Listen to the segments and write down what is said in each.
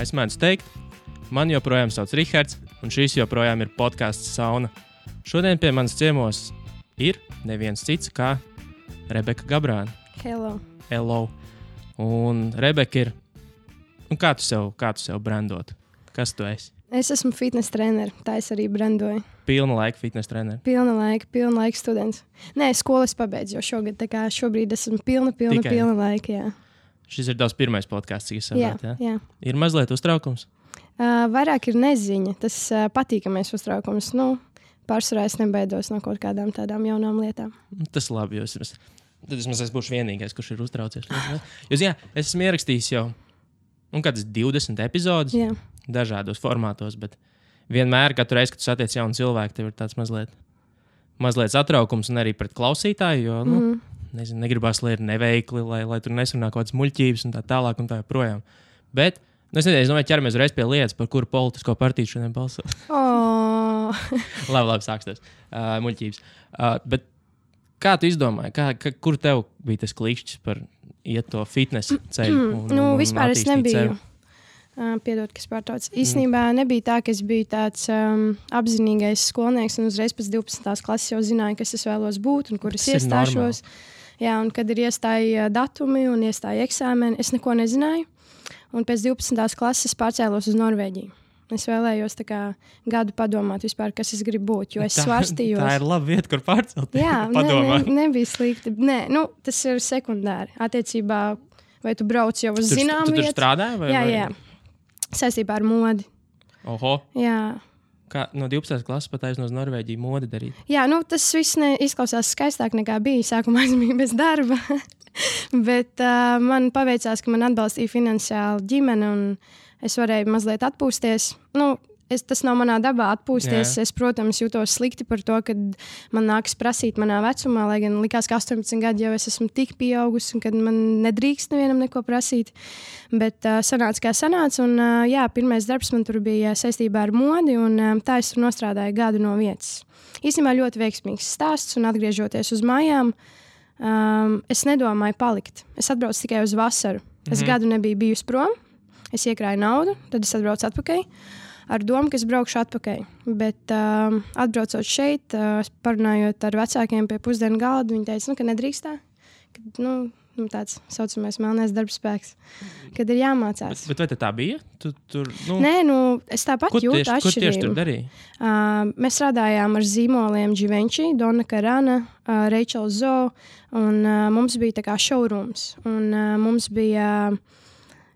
es mēdzu teikt, man joprojām sauc Rihards, un šis joprojām ir podcasts Sauna. Šodien pie manas ciemos ir neviens cits kā Rebeka Gabrāne. Hello. Un Rebeka ir, kā tu sev brandot? Kas tu esi? Es esmu fitness treneris, tā es arī brandoju. Pilna laika fitness treneris. Pilna laika students. Nē, skolas pabeidzu, jo šobrīd esmu pilna laika, jā. Šis ir tavs pirmais podcasts, cik es saprotu, jā. Ir mazliet uztraukums? Vairāk ir neziņa, tas patīkamais uztraukums. Pārsvarā es nebaidos no kaut kādām tādām jaunām lietām. Tas labi, jo tad es būšu vienīgais, kurš ir uztraucies. Es esmu ierakstījis jau kādas 20 epizodes. Jā. Dažādos formātos, bet vienmēr, katru reizi, kad tu satiec jaunu cilvēku, tev ir tāds mazliet satraukums un arī pret klausītāju, jo, negribas, lai ir neveikli, lai tur nesanāk kaut kādas muļķības un tā tālāk un tā joprojām. Bet, es domāju, ķeramies reiz pie lietas, par kuru politisko partiju šodien balsot. Labi, sāksties. Muļķības. Bet kā tu izdomāji, kur tev bija tas klikšķis par iet to fitness ceļu? Vispār es nebiju. Piedod, kas pārtauc. Īstenībā nebija tā, ka es biju tāds apzinīgais skolnieks un uzreiz pēc 12. klases jau zināju, kas es vēlos būt un kur es iestāšos. Jā, un kad ir iestāja datumi un iestāja eksāmeni, es neko nezināju. Un pēc 12. klases pārcēlos uz Norvēģiju. Es vēlējos gadu padomāt vispār, kas es gribu būt, jo es svarstījos. Tā ir laba vieta, kur pārcelt. Jā, nebija slikti. Nē, tas ir sekundāri. Attiecībā, vai tu brauc jau uz zinām vietu? Tu tur strādāji? Jā. Saistībā ar modi. Oho. Jā. Kā no 12. klases pat aiz no Norvēģiju modi darīt? Jā, tas viss izklausās skaistāk nekā bija. Sākumā es biju bez darba. Bet man paveicās, ka man atbalstīja finansiāli ģimene un es varēju mazliet atpūsties. Tas nav manā dabā atpūsties. Jā. Es, protams, jūtos slikti par to, ka man nākas prasīt manā vecumā, lai gan likās, ka 18 gadi jau es esmu tik pieaugusi un kad man nedrīkst nevienam neko prasīt. Bet sanāca, kā sanāca. Un, pirmais darbs man tur bija saistībā ar modi un tā es tur nostrādāju gadu no vietas. Īstenībā ļoti veiksmīgs stāsts un atgriežoties uz mājām, es nedomāju palikt. Es atbraucu tikai uz vasaru. Es gadu nebiju bijusi prom. Es iekrāju naudu, tad es atbraucu atpakaļ. Ar domu, ka es braukšu atpakaļ. Bet atbraucot šeit, parunājot ar vecākiem pie pusdienu galda, viņi teica, ka nedrīkst tā. Tāds saucamais melnais darbspēks, kad ir jāmācās. Bet vai tā bija? Nē, es tāpat jūtu atšķirību. Ko tieši tur darīja? Mēs strādājām ar zīmoliem Givenchy, Donna Karan, Rachel Zoe, un mums bija tā kā showrooms. Un mums bija...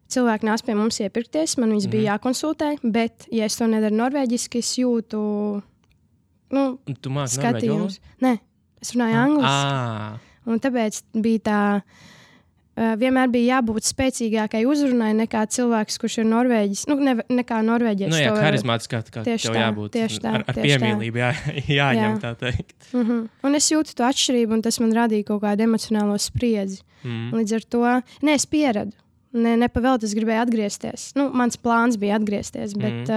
Cilvēki nāc pie mums iepirkties, man viņas bija jākonsultē, bet, ja es to nedaru norvēģiski, es jūtu Tu māki skatījumus. Nē, es runāju angliski. Un tāpēc bija tā, vienmēr bija jābūt spēcīgākai uzrunai nekā cilvēks, kurš ir norvēģis. Nekā norvēģis. Harizmātiskā, kā tev jābūt. Ar piemīlību jāņem, tā teikt. Un es jūtu to atšķirību, un tas man radīja kaut kādu emocionālo spriedzi. Līdz ar to, es pieradu. Nepavēlēt, es gribēju atgriezties. Mans plāns bija atgriezties, bet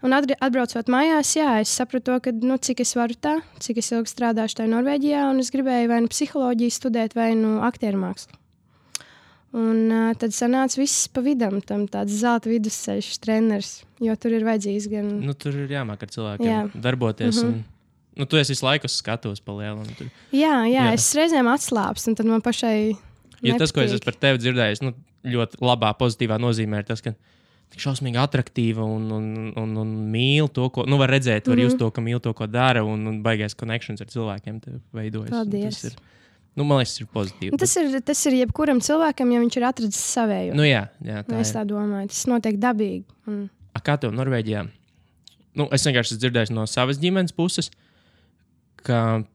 atbraucot mājās, es sapratu, ka, cik es varu tā, cik es ilgi strādāšu tajā Norvēģijā, un es gribēju vai psiholoģiju studēt, vai aktieri-mākslu. Un tad sanāca viss pa vidam, tam tāds zelta vidusceļš treneris, jo tur ir vajadzīgs gan... Tur ir jāmāk ar cilvēkiem darboties, un tu esi visu laiku skatos pa lielu. Jā, es reizēm atslāpstu, un tad man pašai... Jo tas, ko es esmu par tevi dzirdējis, ļoti labā, pozitīvā nozīmē ir tas, ka tik šausmīgi atraktīva un mīl to, ko, var redzēt, var just to, ka mīl to, ko dara, un baigais connections ar cilvēkiem tev veidojas. Paldies. Tas ir, man liekas, tas ir pozitīvi. Tas ir jebkuram cilvēkam, ja viņš ir atradzis savēju. Jā, tā es tā domāju, tas notiek dabīgi. Kā tev Norvēģijā? Es vienkārši esmu dzirdējis no savas ģimenes puses, ka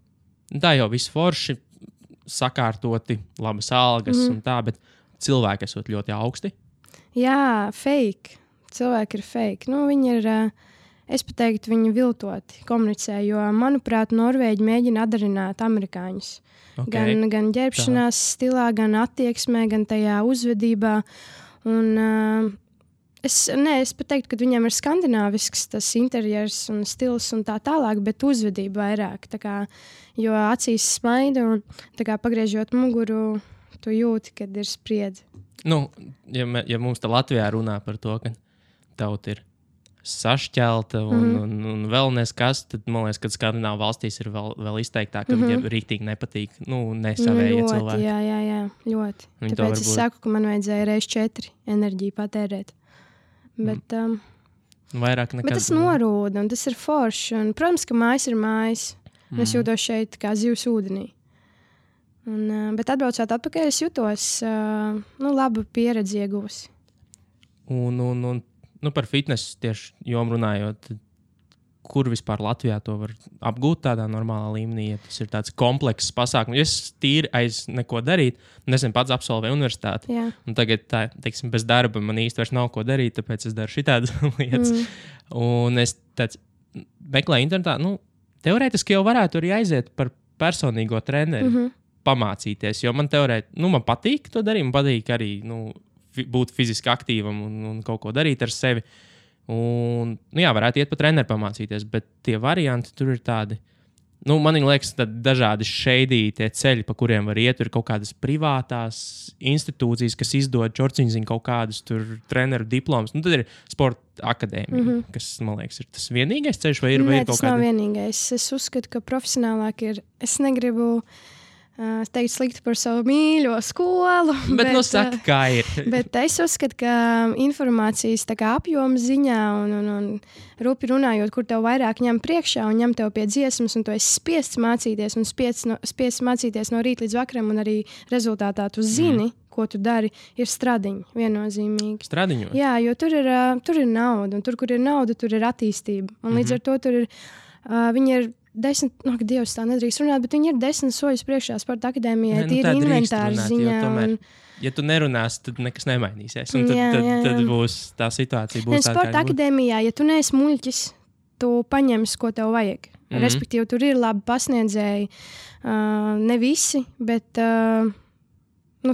tā jau viss forši, sakārtoti, labas algas un tā, bet cilvēki esot ļoti augsti. Jā, fake. Cilvēki ir fake. Viņi ir, es pat teiktu, viņi viltoti komunicē, jo, manuprāt, Norvēģi mēģina atdarināt amerikāņus. Okay. Gan ģērbšanās stilā, gan attieksmē, gan tajā uzvedībā. Un es pat teiktu, ka viņiem ir skandināvisks tas interjers un stils un tā tālāk, bet uzvedība vairāk. Jo acīs smaida un pagriežot muguru, tu jūti, kad ir spriedzi. Nu, ja mums te Latvijā runā par to, ka tauta ir sašķelta un vēl neskas, tad man liekas, ka Skandināvu valstīs ir vēl izteiktāk, ka viņiem rīktīgi nepatīk, nesavējie cilvēki. Jā, ļoti. Viņi Tāpēc es saku, ka man vajadzēja reiz 4 enerģiju patērēt. Bet, vairāk nekad. Bet tas norūda un tas ir forši. Un, protams, ka mājas ir mājas. Es jūtos šeit kā zivs ūdenī. Bet atbraucot atpakaļ, es jūtos labu pieredzi ieguvusi. Un par fitnesu tieši jomu runājot, kur vispār Latvijā to var apgūt tādā normālā līmenī, ja tas ir tāds komplekss pasākums. Es tīri aiz neko darīt, nesen pats absolvēju universitāti. Jā. Un tagad, teiksim, bez darba man īsti vairs nav ko darīt, tāpēc es daru šitādas lietas. Un es meklēju internetā, teorētiski jau varētu arī aiziet par personīgo treneri, pamācīties, jo man man patīk to darīt, man patīk arī, būt fiziski aktīvam un kaut ko darīt ar sevi. Un, varētu iet pa treneru pamācīties, bet tie varianti tur ir tādi. Man liekas, dažādi šeidītie ceļi, pa kuriem var iet. Ir kaut kādas privātās institūcijas, kas izdod čorciņziņu kaut kādus treneru diplomus. Tad ir sporta akadēmija, kas, man liekas, ir tas vienīgais ceļš, vai ir kaut kāda? Nē, tas nav vienīgais. Es uzskatu, ka profesionālāk ir. Es negribu teikt slikti par savu mīļo skolu. Bet saka, kā ir. Bet es uzskatu, ka informācijas apjoma ziņā un rupi runājot, kur tev vairāk ņem priekšā un ņem tev pie dziesmas, un tu esi spiests mācīties un spiests mācīties no rīta līdz vakaram, un arī rezultātā tu zini, ko tu dari, ir stradiņi viennozīmīgi. Stradiņos? Jā, jo tur ir nauda, un tur, kur ir nauda, tur ir attīstība. Un līdz ar to tur ir, viņi ir 10, Dievs, tā nedrīkst runāt, bet viņi ir 10 soļus priekšā sporta akadēmijai, tīri inventāra ziņā. Tomēr, ja tu nerunāsi, tad nekas nemainīsies. Un tad būs tā situācija. Sporta akadēmijā, ja tu neesi muļķis, tu paņemsi, ko tev vajag. Respektīvi, tur ir labi pasniedzēji, ne visi, bet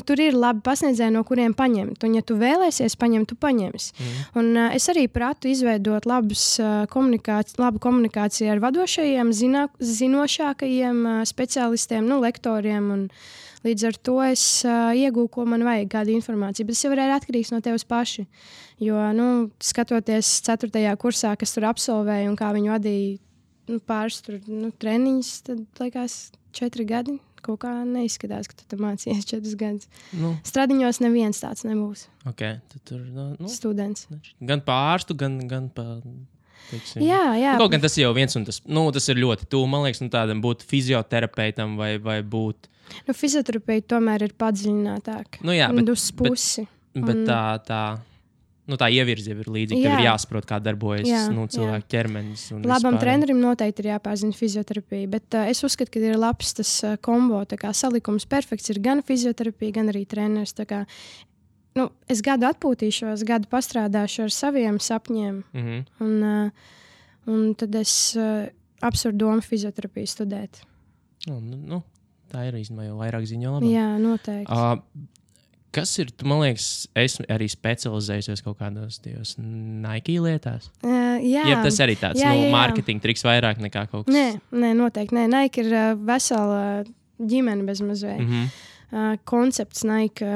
tur ir labi pasniedzēji, no kuriem paņemt. Un, ja tu vēlēsies paņemt, tu paņemsi. Un es arī pratu izveidot labu komunikāciju ar vadošajiem, zinošākajiem speciālistiem, lektoriem. Un līdz ar to es iegūstu, ko man vajag, kādu informāciju. Bet tas jau ir atkarīgs no tevis paši. Jo, skatoties 4. kursā, kas tur absolvēja un kā viņi vadīja pāris treniņus, tad liekas 4 gadi. Kaut kā neizskatās, ka tu tur mācījies 4 gadus. Stradiņos neviens tāds nebūs. Okay, tad tur students. Gan pārstu, gan pa... Teiksim. Jā. Kaut gan tas jau viens un tas, tas ir ļoti tuvu. Man liekas, tādam būt fizioterapeitam vai būt... Fizioterapeiti tomēr ir padziļinātāk. Uz pusi. Bet tā ievirze ir līdzīga. Tev ir jāsaprot, kā darbojas cilvēku ķermenis. Labam trenerim noteikti ir jāpārzina fizioterapija, bet es uzskatu, ka ir labs tas kombo, salikums perfekts ir gan fizioterapija, gan arī treneris. Es gadu atpūtīšos, gadu pastrādāšu ar saviem sapņiem, un tad es apsveru domu fizioterapiju studēt. Tā ir īstenībā jau vairāk ziņo labāk. Jā, noteikti. Kas ir, man liekas, esmu arī specializējusies kaut kādos Nike lietās? Jā. Tas arī tāds mārketinga triks vairāk nekā kaut kas. Nē, noteikti. Nē. Nike ir vesela ģimene bez mazliet. Koncepts Nike.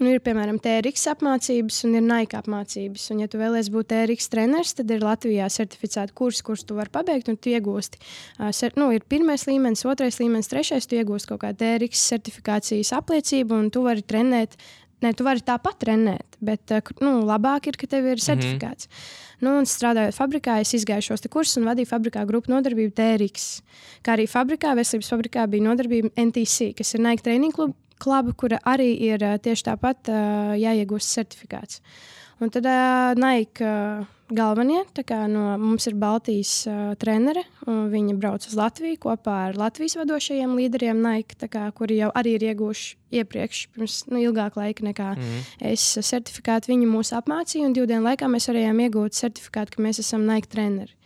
Ir, piemēram, TRX apmācības un ir Nike apmācības. Un, ja tu vēlies būt TRX treneris, tad ir Latvijā certificēta kursi, kurus tu vari pabeigt, un tu iegūsti. Ir 1. līmenis, 2. līmenis, 3. tu iegūsti kaut kādu TRX certifikācijas apliecību, un tu vari trenēt. Tu vari tāpat trenēt, bet labāk ir, ka tev ir certifikāts. Un strādājot fabrikā, es izgāju šos kursus un vadīju fabrikā grupu nodarbību TRX. Kā arī veselības fabrikā bija nodarbība NTC, kas ir Nike training kluba, kura arī ir tieši tāpat jāiegūst certifikāts. Un tad Nike galvenie, mums ir Baltijas trenere, un viņi brauc uz Latviju kopā ar Latvijas vadošajiem līderiem Nike, kuri jau arī ir iegūši iepriekš, pirms ilgāka laika nekā es certifikātu. Viņi mūs apmācīja, un 2 dienu laikā mēs varējām iegūt certifikātu, ka mēs esam Nike treneri.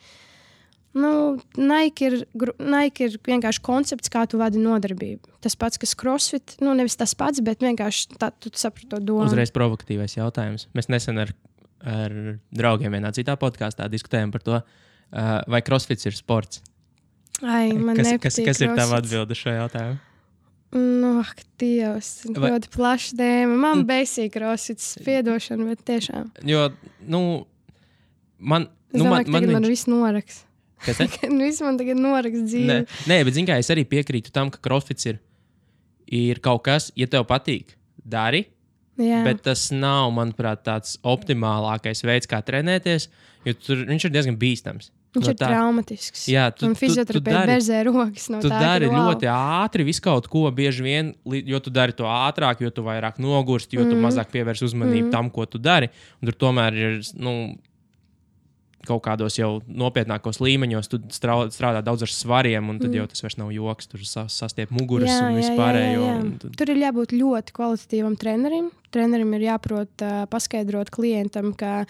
Nike ir vienkārši koncepts, kā tu vadi nodarbību. Tas pats, kas CrossFit, nevis tas pats, bet vienkārši tu saproti to domu. Uzreiz provokatīvais jautājums. Mēs nesen ar draugiem vienā citā podkāstā diskutējām par to, vai CrossFits ir sports. Man nepatīk kas ir tava atbilde šo jautājumu? Dievs, ļoti plaša tēma. Man basic crossfits, piedošana, bet tiešām. Jo, man viss noraks. Kas te? Viss man tagad noraks dzīvi. Nē, bet zini kā, es arī piekrītu tam, ka crossfits ir kaut kas, ja tev patīk, dari. Jā. Bet tas nav, manuprāt, tāds optimālākais veids, kā trenēties, jo viņš ir diezgan bīstams. Viņš ir traumatisks. Jā, un fizioterapeiti berzē rokas no tā. Tu dari ļoti ātri visu kaut ko, bieži vien, jo tu dari to ātrāk, jo tu vairāk nogursti, jo tu mazāk pievērsi uzmanību tam, ko tu dari. Un tur tomēr ir, kaut kādos jau nopietnākos līmeņos, tu strādā daudz ar svariem, un tad jau tas vairs nav joks, tur sastiep muguras un vispārējo. Tur ir jābūt ļoti kvalitatīvam trenerim. Trenerim ir jāprot paskaidrot klientam, ka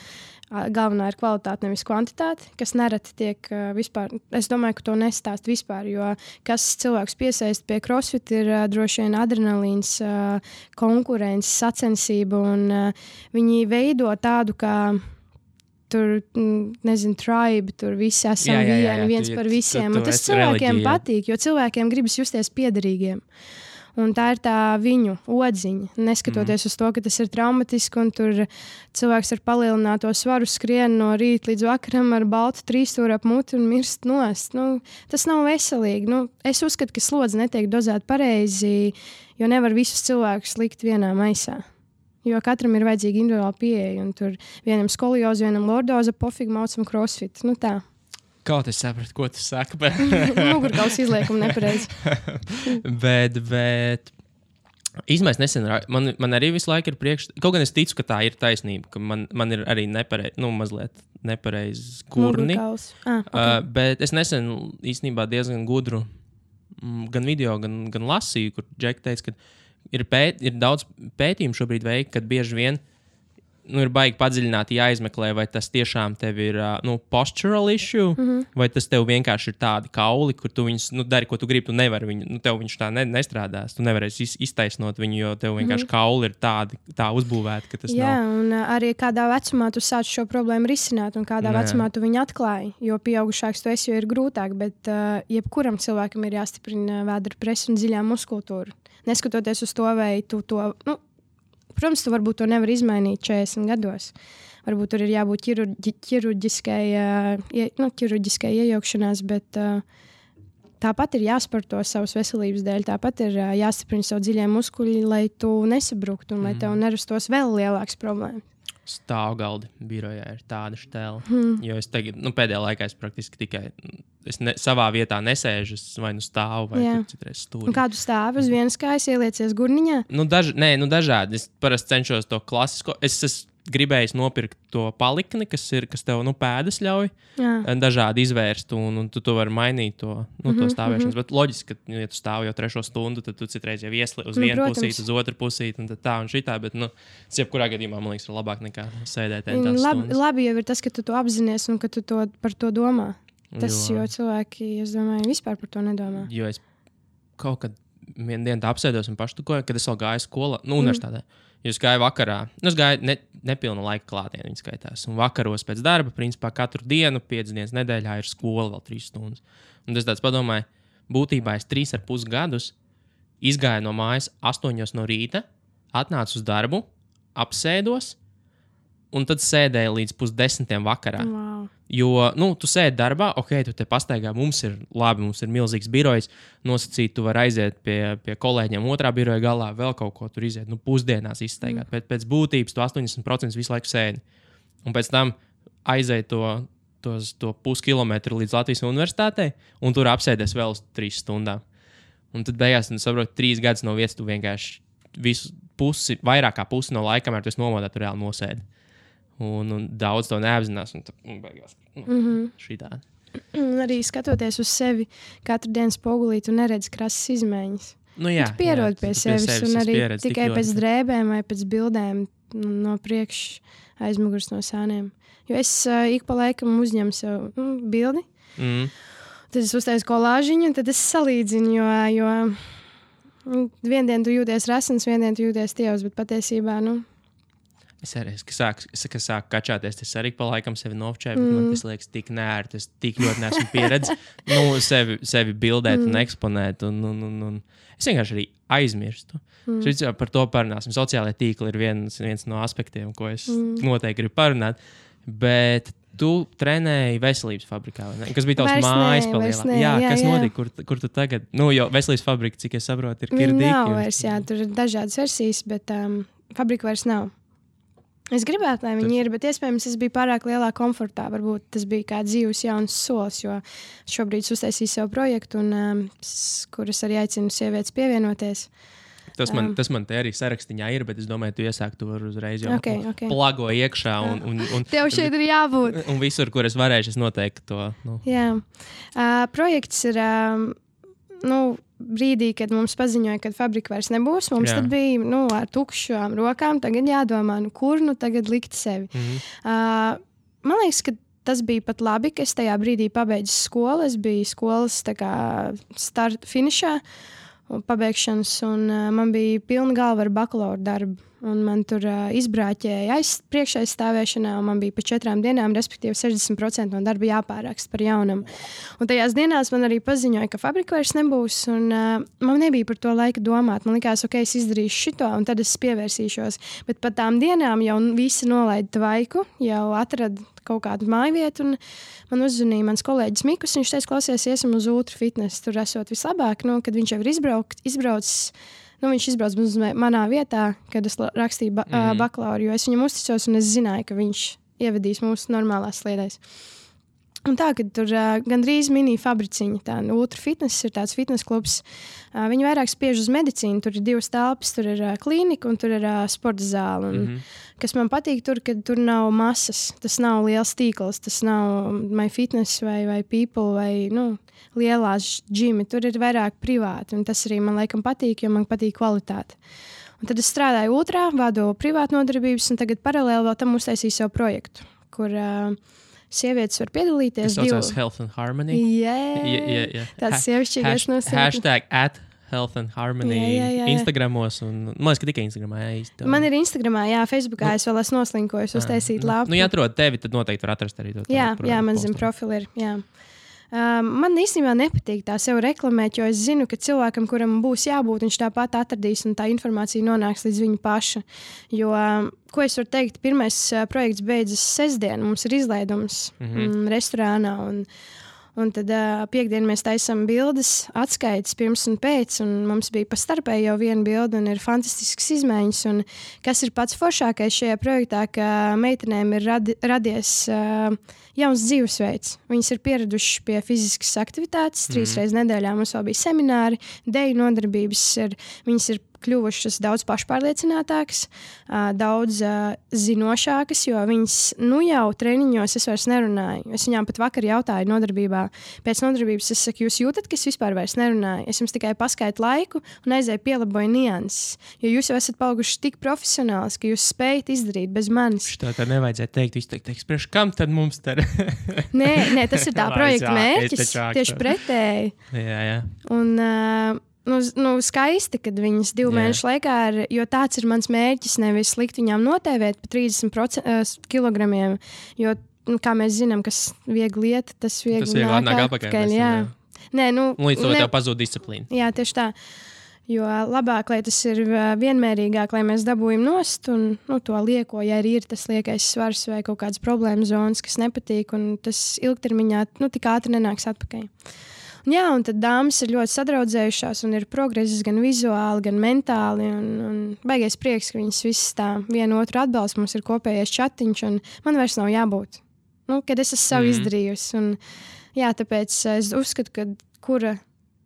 galvenā ir kvalitāte, nevis kvantitāte, kas nereti tiek vispār. Es domāju, ka to nestāst vispār, jo kas cilvēks piesaist pie crossfit ir droši vien adrenalīns, konkurence, sacensība, un viņi veido tādu, kā tur, nezinu, tribe, tur visi esam viens par visiem. Un tas cilvēkiem patīk, jo cilvēkiem gribas justies piederīgiem. Un tā ir tā viņu odziņa, neskatoties uz to, ka tas ir traumatiski, un tur cilvēks ar palielināto svaru skrien no rīta līdz vakaram ar baltu trīsstūri ap muti un mirst nost. Tas nav veselīgi. Es uzskatu, ka slodze netiek dozēta pareizi, jo nevar visus cilvēkus likt vienā maisā. Jo katram ir vajadzīga individuāla pieeja, un tur vienam skolioza, vienam lordoza, pofīgi maucam crossfit. Tā. Kaut es sapratu, ko tu saki, bet... Mugurkauls izliekuma nepareizi. bet īstenībā nesen, man arī visu laiku ir kaut gan es ticu, ka tā ir taisnība, ka man ir arī mazliet nepareizi kurni. Mugurkauls. Okay. Bet es nesen īstenībā diezgan gudru gan video, gan lasīju, kur Džeki teica, ka ir daudz pētījumu šobrīd veikti, kad bieži vien ir baigi padziļināti jāizmeklē, vai tas tiešām tev ir postural issue, vai tas tev vienkārši ir tādi kauli, kur tu viņus dari, ko tu gribi, tu nevari viņu, tev viņš tā nestrādās, tu nevarēsi iztaisnot viņu, jo tev vienkārši kauli ir tā uzbūvēti, ka tas nav. Jā, un arī kādā vecumā tu sāc šo problēmu risināt, un kādā vecumā tu viņu atklāji, jo pieaugušāks tu esi, jo ir grūtāk, bet jebkuram cilvēkam ir jāstiprina vēdra presa un dziļā muskultūra. Neskatoties uz to, vai tu to... Protams, tu varbūt to nevar izmainīt 40 gados. Varbūt tur ir jābūt ķirurģiskai iejaukšanās, bet tāpat ir jāsporto savas veselības dēļ. Tāpat ir jāstiprina savu dziļie muskuļi, lai tu nesabruktu un lai tev nerastos vēl lielāks problēmas. Stāvgaldi birojā ir tāda štēla. Jo es tagad, pēdējā laikā es praktiski tikai savā vietā nesēžu, vai stāvu, vai citreiz stūri. Un kādu stāvu uz vienas kājas ieliecies gurniņā? Dažādi. Es parasti cenšos to klasisko. Es gribēju nopirkt to palikni, kas tev pēdas ļauj dažādi izvērst, un tu vari mainīt to stāvēšanas. Bet loģiski, ka, ja tu stāvi jau 3 stundu, tad tu citreiz jau iesli uz vienu pusīti, uz otru pusīti, un tā un šitā, bet, jebkurā gadījumā, man liekas, ir labāk nekā sēdēt tās stundas. Labi jau ir tas, ka tu to apzinies un ka tu par to domā. Jo cilvēki, es domāju, vispār par to nedomā. Jo es kaut kad vienu dienu tā apsēdos un paštukoju, kad es vēl gāju skolā, universitātē. Jo es gāju vakarā, es gāju nepilnu laika klātienē, viņa skaitās. Un vakaros pēc darba, principā katru dienu, 5 dienas nedēļā ir skola vēl 3 stundas. Un es tāds padomāju, būtībā es 3,5 gadus izgāju no mājas 8 no rīta, atnācu uz darbu, apsēdos, un tad sēdēju līdz 9:30 vakarā. Wow. Jo, tu sēdi darbā, tu te pastaigā, mums ir milzīgs birojs, nosacīt, tu vari aiziet pie kolēģiem otrā biroja galā, vēl kaut ko tur iziet, pusdienās izstaigāt. Pēc būtības tu 80% visu laiku sēdi. Un pēc tam aiziet to puskilometru līdz Latvijas universitātei, un tur apsēdies vēl 3 stundām. Un tad beigās, tu saproti, 3 gadus no vietas tu vienkārši vairāk kā pusi no laika, kamēr tu esi nomodā, tu reāli nosēdi. Un daudz to neapzinās, un tad beigās šitādi. Arī skatoties uz sevi, katru dienu spogulī tu neredzi krasas izmaiņas. Jā, tu pierodi pie sevis, un arī tikai pēc drēbēm vai pēc bildēm no priekš aizmugurs no sāniem. Jo es ik pa laikam uzņemu sev bildi, tad es uztaisu kolāžiņu, un tad es salīdzinu, jo vienu dienu tu jūties resns, vienu dienu tu jūties tievs, bet patiesībā, Es arī, kas sāk kačāties, es arī pa laikam sevi novčēju, bet man tas liekas tik nērti, es tik ļoti neesmu pieredzējis sevi bildēt un eksponēt. Un es vienkārši arī aizmirstu. Par to parunāsim. Sociālajie tīkli ir viens no aspektiem, ko es noteikti gribu parunāt. Bet tu trenēji veselības fabrikā, vai ne? Kas bija tavs mājas palielā? Jā, kas notika? Kur tu tagad? Jo veselības fabrika, cik es saprotu, ir Kirdīki. Nav vairs, tur ir dažādas versijas, bet fabrika vairs nav. Es gribētu, lai viņi ir, bet iespējams es biju pārāk lielā komfortā. Varbūt tas bija kā dzīves jauns solis, jo šobrīd uztaisīju savu projektu, kuras arī aicinu sievietes pievienoties. Tas man te arī sarakstiņā ir, bet es domāju, tu iesāki to uzreiz jau plago iekšā. Un tev šeit ir jābūt. Un visur, kur es varēšu, es noteikti to. Jā. Projekts ir brīdī, kad mums paziņoja, ka fabrika vairs nebūs. Mums tad bija ar tukšām rokām. Tagad jādomā, kur tagad likt sevi. Man liekas, ka tas bija pat labi, ka es tajā brīdī pabeidzu skolu. Es biju skolas finišā. Pabeigšanas, un man bija pilna galva ar bakalaura darbu. Un man tur izbrāķēja priekšaizstāvēšanā, un man bija pa 4 dienām, respektīvi 60% no darba jāpāraksta par jaunam. Un tajās dienās man arī paziņoja, ka fabrika vairs nebūs, un man nebija par to laika domāt. Man likās, ok, es izdarīšu šito, un tad es pievērsīšos. Bet pat tām dienām jau visi nolaida tvaiku, jau atrada kaut kādu mājvietu, un man uzzvanīja mans kolēģis Mikus. Viņš teica, klausies, iesim uz Ultra Fitness. Tur esot vislabāk, kad viņš jau ir izbraucis. Viņš izbrauca uz manā vietā, kad es rakstīju bakalauru, jo es viņam uzticos un es zināju, ka viņš ievedīs mūsu normālās sliedēs. Un tā, kad tur gandrīz mini fabriciņa, tā Ultra Fitness ir tāds fitness klubs, viņi vairāk spiež uz medicīnu, tur ir 2 telpas, tur ir klīnika un tur ir sporta zāle. Un, kas man patīk tur, kad tur nav masas, tas nav liels tīkls, tas nav MyFitness vai People vai, lielās džimi, tur ir vairāk privāti, un tas arī man laikam patīk, jo man patīk kvalitāte. Un tad es strādāju Ultrā, vadu privātu nodarbības, un tagad paralēli vēl tam uztaisīju savu projektu, kur sievietes var piedalīties. Tas saucās Health and Harmony? Jā. Tāds sievišķīgais nosaucums. #Health and Harmony Instagramos, un man liekas, ka tikai Instagramā īsti. Man ir Instagramā, Facebook es vēl esmu noslinkojis, uztaisīt lapu. Ja atrod tevi, tad noteikti var atrast arī to. Jā, man zem profili ir, jā. Man īstenībā nepatīk tā sev reklamēt, jo es zinu, ka cilvēkam, kuram būs jābūt, viņš tāpat atradīs un tā informācija nonāks līdz viņa paša. Jo, ko es varu teikt, pirmais projekts beidzas sestdien, mums ir izlaidums restorānā, un tad piekdien mēs taisam bildes, atskaites pirms un pēc, un mums bija pa starpēji jau viena bilde, un ir fantastisks izmaiņas. Un kas ir pats foršākais šajā projektā, ka meitenēm ir radies jauns dzīvesveids. Viņas ir pieradušas pie fiziskas aktivitātes, 3 reizes nedēļā mums vēl bija semināri, deju nodarbības, viņas ir kļuvušas daudz pašpārliecinātākas, daudz zinošākas, jo viņas jau treniņos es vairs nerunāju. Es viņām pat vakar jautāju nodarbībā. Pēc nodarbības es saku, jūs jūtat, ka es vispār vairs nerunāju? Es jums tikai paskaitu laiku un aizēju pielaboju nianses. Jo jūs jau esat palikuši tik profesionāls, ka jūs spējat izdarīt bez manis. Tā nevajadzēja teikt. Jūs teikt, priekš kam tad mums te? Nē, tas ir tā projekta mērķis. Tieši pretēji. Jā. Un skaisti, kad viņas 2 mēnešu laikā ir, jo tāds ir mans mērķis, nevis likt viņām notēvēt pa 30 kilogramiem, jo, kā mēs zinām, kas viegli iet, tas viegli nāk atpakaļ. Nē, līdz to tev pazūd disciplīna. Jā, tieši tā. Jo labāk, lai tas ir vienmērīgāk, lai mēs dabūjam nost un to lieko, ja arī ir tas liekais svars vai kaut kādas problēma zonas, kas nepatīk, un tas ilgtermiņā tik ātri nenāks atpakaļ. Jā, un tad dāmas ir ļoti sadraudzējušās un ir progress gan vizuāli, gan mentāli. Un baigais prieks, ka viņas visas tā vienu otru atbalsta. Mums ir kopējais chatiņš, un man vairs nav jābūt. Kad es esmu savu izdarījusi. Un, jā, tāpēc es uzskatu, ka kura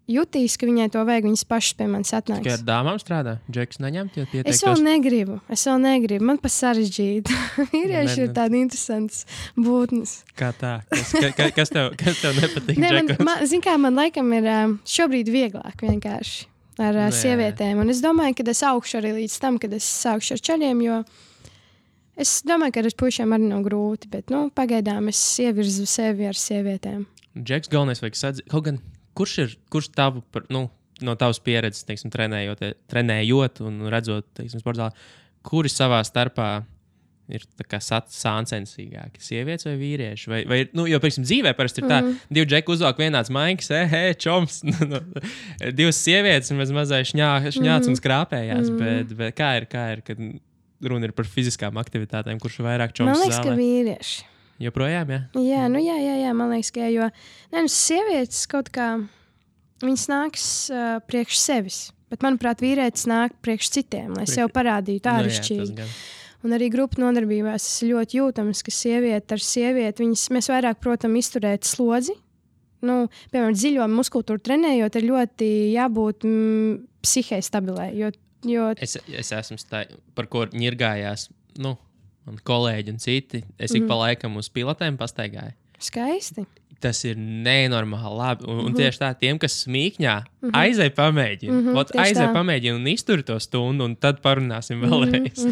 jutīs, ka viņai to vajag, viņas pašas pie manis atnāks. Tikai ar dāmām strādā? Džeks neņemt? Es vēl negribu. Man pa sarežģīti. Vīrieši ir tādi interesants būtnes. Kā tā? Kas tev nepatīk? Zin kā, man laikam ir šobrīd vieglāk vienkārši ar sievietēm. Un es domāju, ka es augšu arī līdz tam, kad es sākšu ar čaļiem, jo es domāju, ka ar puišiem arī nav grūti, bet pagaidām es ievirzu sevi ar sievietēm. Džeks galvenais vajag sadzīt. Kaut gan Kurš tavu, no tavas pieredzes, teiksim, trenējot un redzot, teiksim, sportā, kuri savā starpā ir sāncensīgāki? Sievietes vai vīrieši? Vai jo, piemēram, dzīvē parasti ir tā, divi džeki uzvelk vienāds maikas, čoms, divas sievietes un mazais šņāts un skrāpējās, bet kā ir, kad runa ir par fiziskām aktivitātēm, kurš vairāk čoms zālē? Man liekas, ka vīrieši. Joprojām, jā? Jā, man liekas, ka jo sievietes kaut kā, viņas nāks priekš sevis, bet, manuprāt, vīrietis nāk priekš citiem, lai sev parādītu āršķirīgi. Un arī grupu nodarbībās tas ir ļoti jūtams, ka sieviete ar sievieti, mēs vairāk, protams, izturēt slodzi. Piemēram, dziļo muskultūru trenējot, ir ļoti jābūt psihē stabilai. Es esmu par ko ņirgājās, man kolēģi un citi. Es ik pa laikam uz pilotēm pastaigāju. Skaisti. Tas ir nenormāli labi. Un tieši tā, tiem, kas smīkņā, aizej pamēģina. Aizej pamēģina un iztur to stundu, un tad parunāsim vēlreiz.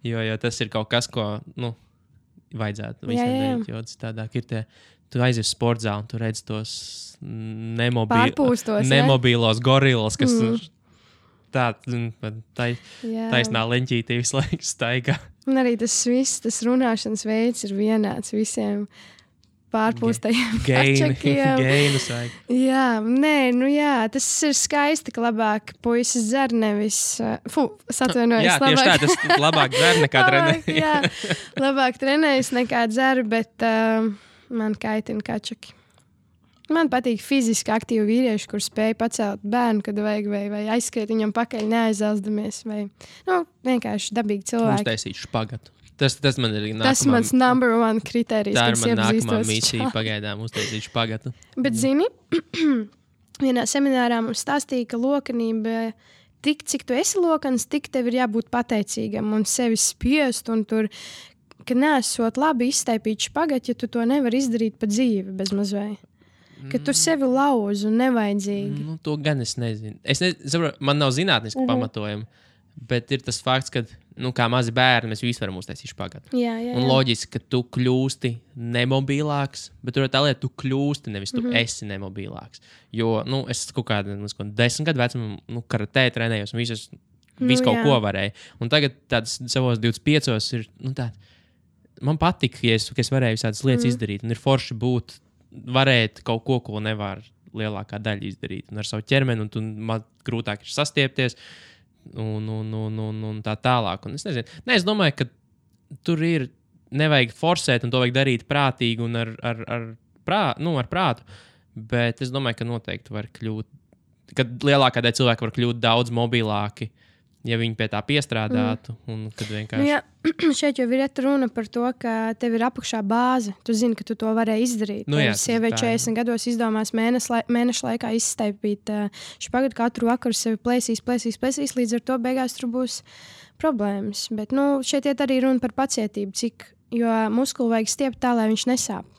Jo tas ir kaut kas, ko vajadzētu visiem darīt. Jo citādāk ir tu aizies sporta zāli un tu redz tos nemobīlos gorillas, kas taisnā leņķītī visu laiku staigā. Un arī tas viss, tas runāšanas veids ir vienāds visiem pārpūstajiem kačakiem. Geinus vajag. Jā, tas ir skaisti, ka labāk puisis dzer nevis... atvainojos. Jā, tieši tā, tas labāk dzer nekā trenējas. Labāk trenējas nekā dzer, bet man kaitina kačaki. Man patīk fiziski aktīvi vīrieši, kur spēj pacelt bērnu, kad vajag, vai aizskriet viņam pakaļ neaizeldamies, vai vienkārši dabīgi cilvēki. Uztaisīt špagatu. Tas man ir nākamā... Tas mans number one kriterijs, tā ir man nākamā misija pagaidām uztaisīt špagatu. Bet zini, vienā seminārā mums stāstīja, ka lokanība, tik cik tu esi lokans, tik tev ir jābūt pateicīgam un sevi spiest un tur, ka nesot labi izstaipīt špagatu, ja tu to nevar izdarīt pa dzīvi bez mazvai. Ka tu sevi lauž un nevajadzīgi. To gan es nezinu. Man nav zinātniski pamatojumi, bet ir tas fakts, ka, kā mazi bērni, mēs visi varam uztaisīt špagatu. Jā. Un loģiski, ka tu kļūsti nemobilāks, bet tur ir tā lieta, tu kļūsti, nevis tu esi nemobilāks. Jo, es kaut kādā 10 gadu vecumā, karatē trenējos un visu kaut ko varēju. Un tagad tāds savos 25 ir, man patika, ja es varēju visādas lietas izdarīt, un ir forši būt varēt kaut ko nevar lielākā daļa izdarīt. Un ar savu ķermeni, un man grūtāk ir sastiepties, un tā tālāk. Un es nezinu. Es domāju, ka tur ir nevajag forsēt, un to vajag darīt prātīgi un ar prātu. Bet es domāju, ka noteikti var kļūt, kad lielākā daļa cilvēku var kļūt daudz mobilāki, ja viņi pie tā piestrādātu. Un kad vienkārši... šeit jau ir runa par to, ka tev ir apakšā bāze. Tu zini, ka tu to varēji izdarīt. Sieviete 40 gados izdomās mēneša laikā izstaipīt špagatu katru vakaru, sevi plēsīs, līdz ar to beigās tur būs problēmas. Bet šeit iet arī runa par pacietību, jo muskuli vajag stiept tā, lai viņš nesāp.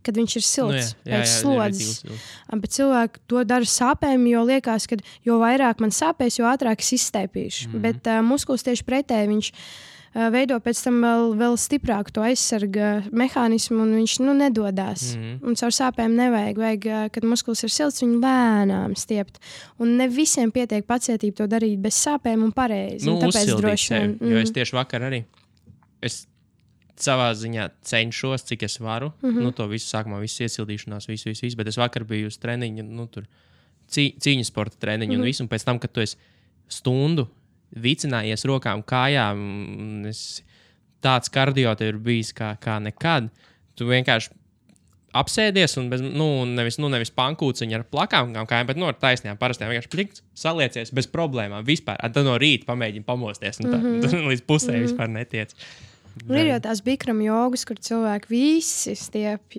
Kad viņš ir silts, pēc slodzes. Bet cilvēki to dara sāpēm, jo liekas, ka jo vairāk man sāpēs, jo ātrāk es izstaipīšu. Bet muskulis tieši pretēji, viņš veido pēc tam vēl stiprāku to aizsarga mehānismu, un viņš nedodās. Un caur sāpēm nevajag, kad muskulis ir silts, viņu lēnām stiept. Un ne visiem pietiek pacietība to darīt bez sāpēm un pareizi. Tāpēc droši vien. Jo es tieši vakar arī... savā ziņā cenšos, cik es varu. To visu sākumā, visu iesildīšanās, visu, bet es vakar biju uz treniņu, cīņas sporta treniņu un visu, un pēc tam, kad tu esi stundu vicinājies rokām, kājām, tāds kardio tev ir bijis kā nekad, tu vienkārši apsēdies un nevis pankūciņu ar plakām kājām, bet ar taisnām parastām vienkārši plikts, saliecies bez problēmām vispār. Tad no rīta pamēģini pamosties un tā līdz pusē vispār netiec. Ir jau tās bikram jogas, kur cilvēki visi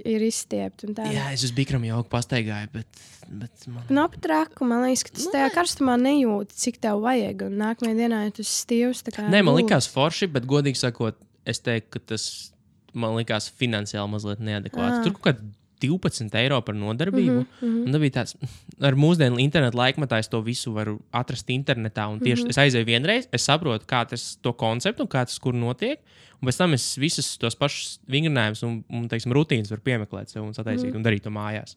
ir izstiepti. Jā, es uz bikram jogu pastaigāju, bet man... Nav pat raku, man liekas, ka tas tajā karstumā nejūti, cik tev vajag. Un nākamajā dienā tu esi stīvs. Nē, man likās forši, bet godīgi sakot, es teiktu, ka tas man likās finansiāli mazliet neadekvāti. Tur kaut kā 12 eiro par nodarbību. Un tā bija tāds, ar mūsdienu internetu laikmatā es to visu varu atrast internetā. Un tieši es aizēju vienreiz, es saprotu, kā tas to konceptu un kā tas kur notiek. Un pēc tam es visus tos pašus vingrinājumus un teiksim, rutīnas varu piemeklēt sev un sataisīt un darīt to mājās.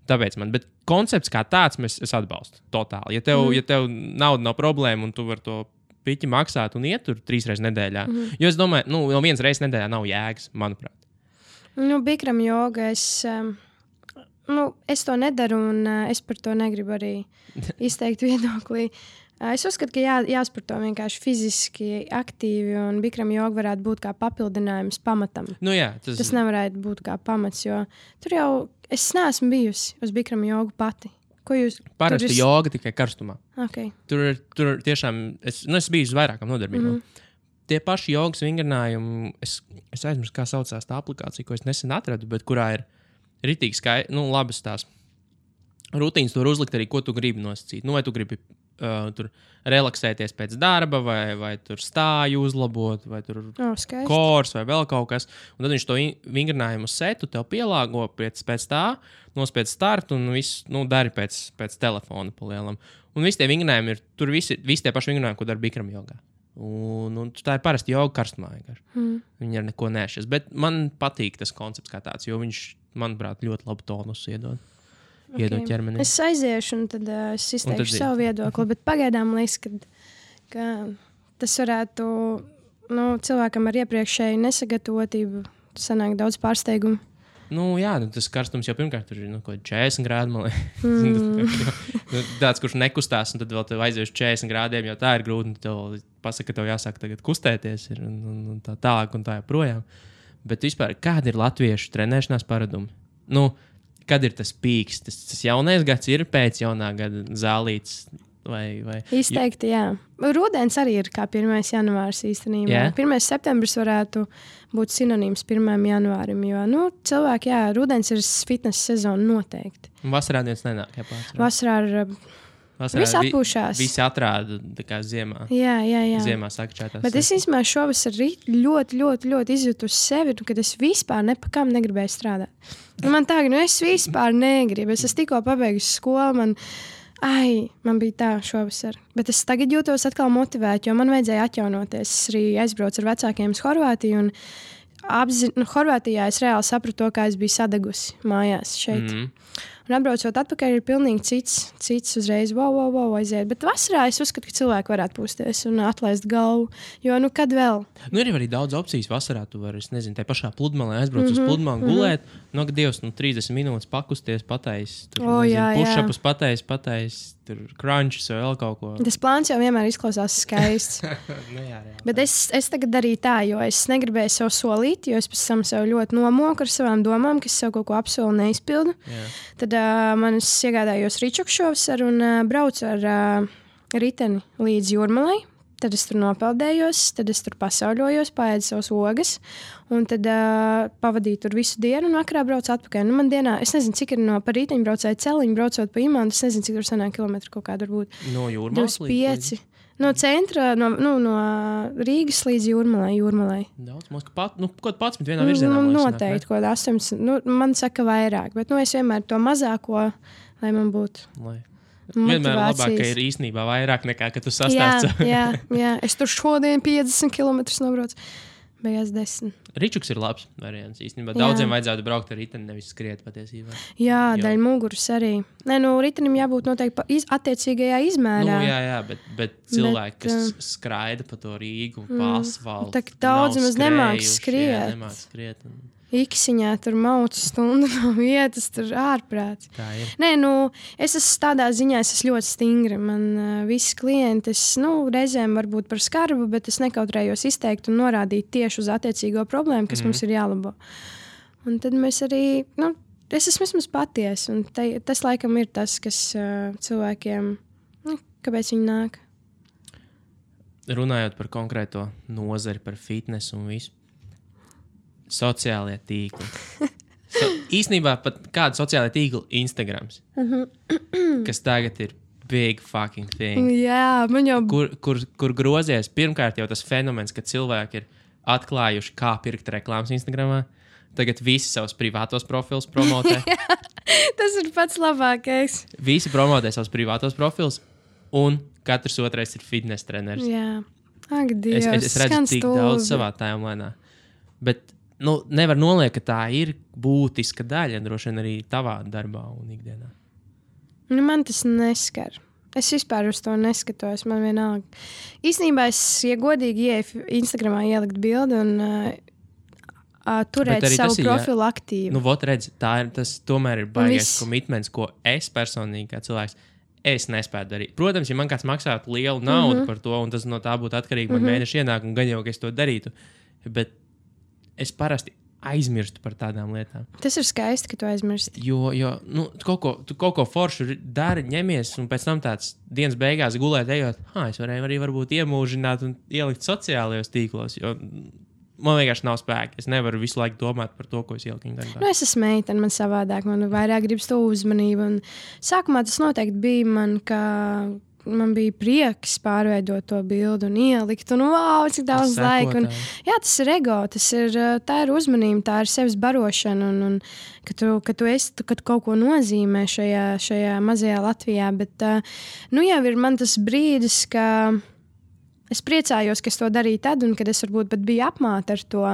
Tāpēc bet koncepts kā tāds es atbalstu totāli. Ja tev nauda nav problēma un tu vari to piķi maksāt un iet tur 3 reizes nedēļā. Jo es domāju, no 1 reizes nedēļā nav jēgas, manuprāt. Bikram joga, es to nedaru un es par to negribu arī izteikt viedoklī. Es uzskatu, ka jāsporto vienkārši fiziski aktīvi un bikram joga varētu būt kā papildinājums pamatam. Tas nevarētu būt kā pamats, jo tur jau es neesmu bijusi uz bikram jogu pati. Parasti joga tikai karstumā. Okay. Tur tiešām, es biju uz vairākām nodarbībām. Tie paši jogas vingrinājumi, es aizmirsu, kā saucās tā aplikācija, ko es nesen atradu, bet kurā ir ritīgi labas tās rutīnas, tur uzlikt arī, ko tu gribi nosacīt. Vai tu gribi tur relaksēties pēc darba, vai tur stāju uzlabot, vai tur kors, vai vēl kaut kas. Un tad viņš to vingrinājumu setu tev pielāgo pēc tā, nospied startu un visu dari pēc telefona pa lielam. Un visi tie vingrinājumi ir, tur visi tie paši vingrinājumi, ko dara bikram jogā. Un tā ir parasti joga karstumā. Viņi ar neko nešas. Bet man patīk tas koncepts kā tāds, jo viņš, manuprāt, ļoti labu tonusu iedod. Iedod ķermenim. Es aiziešu un tad es izteikšu savu viedokli, bet pagaidām liekas, ka tas varētu cilvēkam ar iepriekšēju nesagatavotību sanāk daudz pārsteigumu. Tas karstums jau pirmkārt tur ir 40 grādi, man liekas. Tāds, kurš nekustās, un tad vēl tev aizies 40 grādiem, jo tā ir grūti, un tev pasaka, ka tev jāsāk tagad kustēties un tā tālāk un tā joprojām. Bet vispār, kādi ir latviešu trenēšanās paradumi? Kad ir tas pīks? Tas jaunais gads ir pēc jaunā gada zālītes? Vai? Izteikti, jā. Rudens arī ir kā 1. janvārs īstenībā. 1. septembris varētu būt sinonīms 1. janvārim, jo cilvēki, rudens ir fitness sezona noteikti. Vasarā neviens nenāk, Vasarā visi atpūšās. Visi atrāda tā kā ziemā. Jā. Ziemā sakčētās. Bet es īstenībā šovasar ļoti, ļoti, ļoti izjūtu uz sevi, kad es vispār nepakām negribēju strādāt. Man tā, es vispār negribu. Es tikko pabeigusi skolu, man bija tā šovasar. Bet es tagad jūtos atkal motivēta, jo man vajadzēja atjaunoties. Es arī aizbraucu ar vecākiem uz Horvātiju. Horvātijā es reāli sapratu to, kā es biju sadegusi mājās šeit. Un atbraucot atpakaļ ir pilnīgi cits uzreiz aiziet. Bet vasarā es uzskatu, ka cilvēki varētu pūsties un atlaist galvu. Jo, kad vēl? Ir arī daudz opcijas vasarā. Tu vari, tā pašā pludmalē aizbraukt uz pludmali, gulēt. Dievs, 30 minūtes pakusties, pateicis. Push-upus pateicis, tur crunches vai vēl kaut ko. Tas plāns jau vienmēr izklausās skaists. Jā. Bet es tagad darīju tā, jo es negribēju sev solīt, jo es pēc tam sev ļoti nomoku ar savām domām, ka es sev kaut ko apsolu neizpildu. Tad man es iegādājos Ričuku šovasar un braucu ar riteni līdz Jūrmalai. Tad es tur nopeldējos, tad es tur pasauļojos, paēdu savas ogas, un tad pavadīju tur visu dienu, un vakarā braucu atpakaļ. Man dienā, es nezinu, cik ir pa rīteņu braucēju celiņu, braucot pa Imantu, es nezinu, cik tur sanāk kilometru kaut kādu varbūt. No Jūrmalas 25. No centra, no Rīgas līdz Jūrmalai. Daudz, kaut 11 vienā virzienā. Noteikti, kaut 8. Man saka vairāk, bet es vienmēr to mazāko, lai man būtu. Vienmēr labāk, ka ir īstenībā vairāk nekā, ka tu sastāsti. Jā. Es tur šodien 50 km nobraucu. Beigās 10. Ričuks ir labs variants īstenībā. Daudziem vajadzētu braukt ar riteni, nevis skriet patiesībā. Jā, daļa muguras arī. Ritenim jābūt noteikti attiecīgajā izmērā. Jā, bet cilvēki, kas skraida pa to Rīgu, pa asfaltu. Tā daudz maz nemāk skriet. Iksiņā tur maucu stundu no vietas, tur ārprāts. Tā ir. Es esmu tādā ziņā, es esmu ļoti stingra. Man visi klienti, reizēm varbūt par skarbu, bet es nekautrējos izteikt un norādīt tieši uz attiecīgo problēmu, kas mums ir jālabo. Un tad mēs arī, es esmu vismaz patiesa, un tas laikam ir tas, kas cilvēkiem, kāpēc viņi nāk. Runājot par konkrēto nozari, par fitnesu un visu. Sociālie tīkli. Īsnībā pat kāda sociālā tīkla Instagrams, kas tagad ir big fucking thing. Jā, man jau... Kur grozies, pirmkārt jau tas fenomens, ka cilvēki ir atklājuši, kā pirkt reklāmas Instagramā. Tagad visi savus privātos profilus promotē. Tas ir pats labākais. Visi promotē savus privātos profilus, un katrs otrais ir fitness treneris. Jā. Ak, Dievs, es redzu tik daudz savā timelēnā. Bet nevar noliekt, ka tā ir būtiska daļa, droši vien arī tavā darbā un ikdienā. Man tas neskar. Es vispār uz to neskatos, man vienalga. Īstenībā es, ja godīgi, ieeju Instagramā ielikt bildi un turēt savu profilu aktīvu. Nu, vot redz, tas tomēr ir baigais komitments, ko es personīgi kā cilvēks, es nespēju darīt. Protams, ja man kāds maksātu lielu naudu par to, un tas no tā būtu atkarīgi man mēneša ienākumu, gan jau, ka es to darītu, bet es parasti aizmirstu par tādām lietām. Tas ir skaisti, ka tu aizmirsti. Jo tu kaut ko foršu dari, ņemies, un pēc tam tāds dienas beigās gulēt ejot, es varēju arī varbūt iemūžināt un ielikt sociālajos tīklos, jo man vienkārši nav spēka. Es nevaru visu laiku domāt par to, ko es ieliku internetā. Es esmu meitene, man savādāk, man vairāk gribas to uzmanību. Un sākumā tas noteikti bija man bija prieks pārveidot to bildi un ielikt. Un wow, cik daudz laika. Un, jā, tas ir ego, tā ir uzmanība, tā ir sevis barošana. Un kad tu kaut ko nozīmē šajā mazajā Latvijā. Bet jau ir man tas brīdis, ka es priecājos, ka es to darīju tad, un kad es varbūt pat biju apmāta ar to.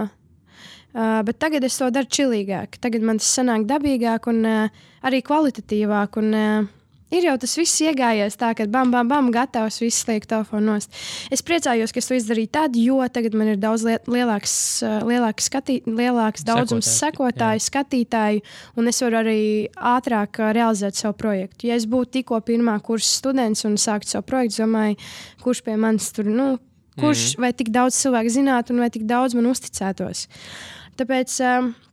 Bet tagad es to daru čilīgāk. Tagad man tas sanāk dabīgāk un arī kvalitatīvāk. Un ir jau tas viss iegājies tā, ka bam, bam, bam, gatavs, viss liek telefonu nost. Es priecājos, ka es to izdarīju tad, jo tagad man ir daudz lielāks daudzums sekotāju, skatītāju, un es varu arī ātrāk realizēt savu projektu. Ja es būtu tikko pirmā kursa students un sāktu savu projektu, domāju, kurš pie manis tur, vai tik daudz cilvēku zinātu un vai tik daudz man uzticētos. Tāpēc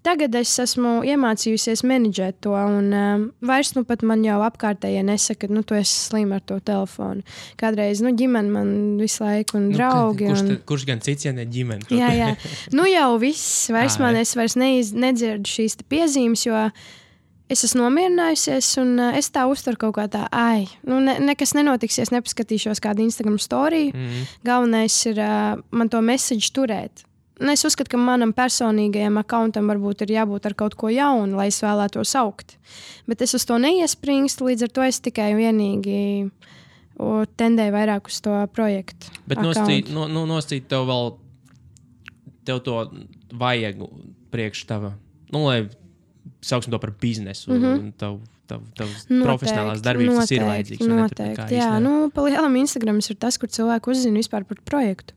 tagad es esmu iemācījusies menedžēt to, un vairs pat man jau apkārtējie nesaka, ka tu esi slima ar to telefonu. Kādreiz ģimene man visu laiku un draugi. Kurš gan cits, ja ne ģimene? Jā. Jau viss. Es vairs nedzirdu šīs piezīmes, jo es esmu nomierinājusies, un es tā uztveru kaut kā tā, nekas nenotiksies, nepaskatīšos kādu Instagram storiju. Galvenais ir man to message turēt. Es uzskatu, ka manam personīgajam accountam varbūt ir jābūt ar kaut ko jaunu, lai es vēlētos augt. Bet es uz to neiespringstu, līdz ar to es tikai vienīgi tendēju vairāk uz to projektu. Bet noscīt tev to vajag priekš tava, lai sauksim to par biznesu, un tavs profesionālās darbības tas ir vajadzīgs. Noteikti, jā. Pa lielam Instagrams ir tas, kur cilvēku uzzina vispār par projektu.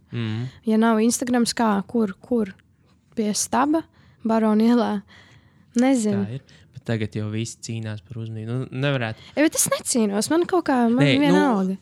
Ja nav Instagrams, kur? Pie staba, Barona ielā? Nezinu. Tā ir. Bet tagad jau visi cīnās par uzmanību. Nevarētu. Bet es necīnos, man kaut kā vienalga.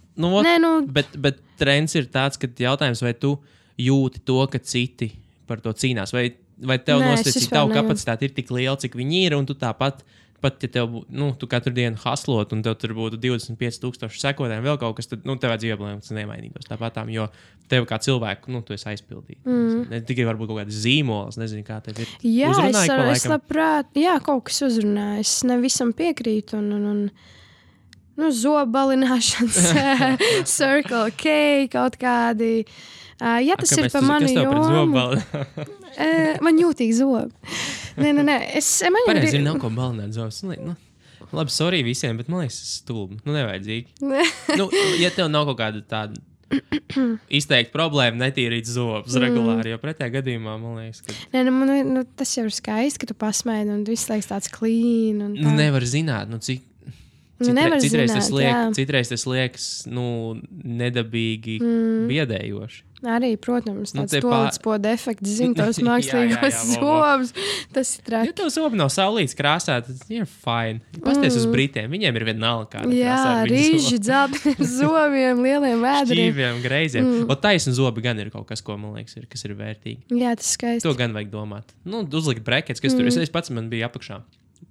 Bet trends ir tāds, ka jautājums, vai tu jūti to, ka citi par to cīnās, vai tev nosacīt, tavu kapacitāti ir tik liela, cik viņi ir, un tu tāpat, pat ja tev, tu katru dienu haslot, un tev tur būtu 25,000 sekotāji, vēl kaut kas, tad tev dzīvoblēm tas nemainīgos tāpatām, jo tev kā cilvēku, tu esi aizpildīt. Ne tikai varbūt kaut kāds zīmols, nezinu, kā tev ir. Jā, es labprāt, kaut kas uzrunā, es nevisam piekrītu, un zobalināšanas, Circle K, kaut kādi. Ja tas ir pa mani jomu, man jūtīgi zobi. Nē. Pareizi, nav ko balināt zobus. Labi, sorry visiem, bet man liekas, tas stulbi. Nevajadzīgi. Ja tev nav kaut kāda tāda izteikta problēma netīrīt zobus regulāri, jo pretējā gadījumā, man liekas, ka... tas jau ir skaisti, ka tu pasmaidi un viss liekas tāds clean. Nevar zināt, cik... Citreiz tas liekas nedabīgi biedējoši. Arī, protams, tāds toaletspoda efekts, tos mākslīgos zobus. Tas ir traki. Ja tev zobi nav saulītes krāsā, tad ir fine. Pasties uz Britiem, viņiem ir vienalga kāda krāsā. Jā, rīži, dzelteniem zobiem, lieliem vēdriem. Šķīviem, greiziem. Taisni zobi gan ir kaut kas, ko man liekas, kas ir vērtīgi. Jā, tas skaisti. To gan vajag domāt. Uzlikt brekets, kas tur. Es pats man bija apakšā.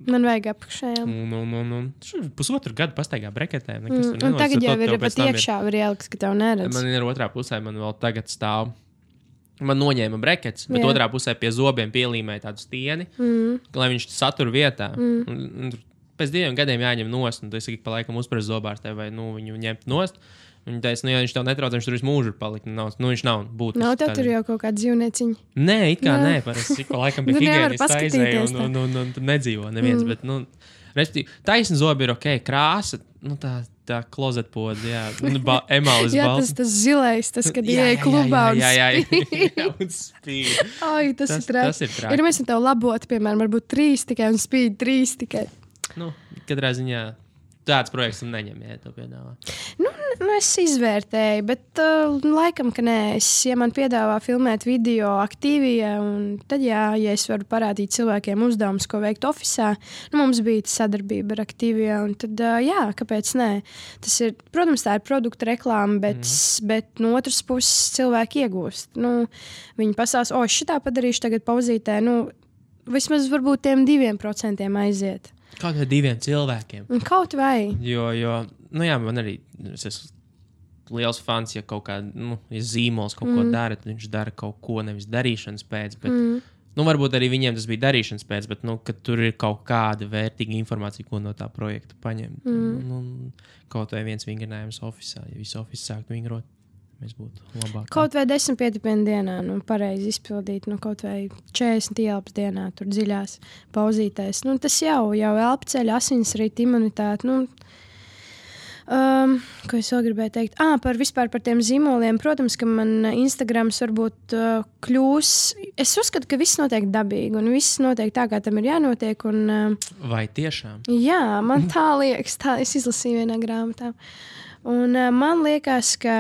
Man vajag apakšā, jā. Pusotru gadu pastaigā breketēm. Un tagad jau ir pat iekšā var ielikt, ka tev neredz. Man ir otrā pusē, man vēl tagad stāv. Man noņēma brekets, bet otrā pusē pie zobiem pielīmēja tādu stieni, lai viņš satur vietā. Pēc 2 gadiem jāņem nost, un tu esi pa laikam uzprast zobārstē, vai viņu ņemt nost. Viņa teica, ja viņš tev netrauc, viņš tur visu mūžu ir palikt. Viņš nav būtisks. Nav tev tur jau kaut kāda dzīvnieciņa? Nē, it kā nē. Parasti pa laikam pie higienistas aizēja un tur nedzīvo neviens. Bet, respektīvi, taisni zobi ir ok, krāsa, tā klozetpoda, jā. Emālis jā, tas zilais, tas, kad ieeja klubā un spīd. Ai, tas ir traki. Ir mēs tev labot, piemēram, varbūt 3 tikai un spīd 3 tikai. Katrā ziņā tāds projekts neņem, ja to piedāvā. Es izvērtēju, bet laikam, ka nē. Ja man piedāvā filmēt video aktīvijā, tad ja es varu parādīt cilvēkiem uzdevumus, ko veikt ofisā, mums bija sadarbība ar aktīvijā, un tad jā, kāpēc nē? Protams, tā ir produkta reklāma, bet no otras puses cilvēki iegūst. Viņi pasās, šitā padarīšu tagad pauzītē, vismaz varbūt tiem 2% aiziet. Kaut vai 2 cilvēkiem. Kaut vai. Jo man arī es esmu liels fans, ja kaut kāda, ja zīmols kaut ko dara, tad viņš dara kaut ko nevis darīšanas pēc, bet, varbūt arī viņiem tas bija darīšanas pēc, bet, kad tur ir kaut kāda vērtīga informācija, ko no tā projekta paņemt. Kaut vai viens vingrinājums ofisā, ja visu ofisu sāktu vingrot. Mēs būtu labāk. Kaut vai 10 pietipienu dienā, pareizi izpildīt, kaut vai 40 ielpas dienā, tur dziļās pauzītēs. Tas jau elpceļ, asinsrita, imunitāte. Ko es vēl gribēju teikt? Vispār par tiem zīmoliem. Protams, ka man Instagrams varbūt kļūs. Es uzskatu, ka viss notiek dabīgi un viss notiek tā, kā tam ir jānotiek. Vai tiešām? Jā, man tā liekas. Tā es izlasīju vienā grāmatā. Un man liekas, ka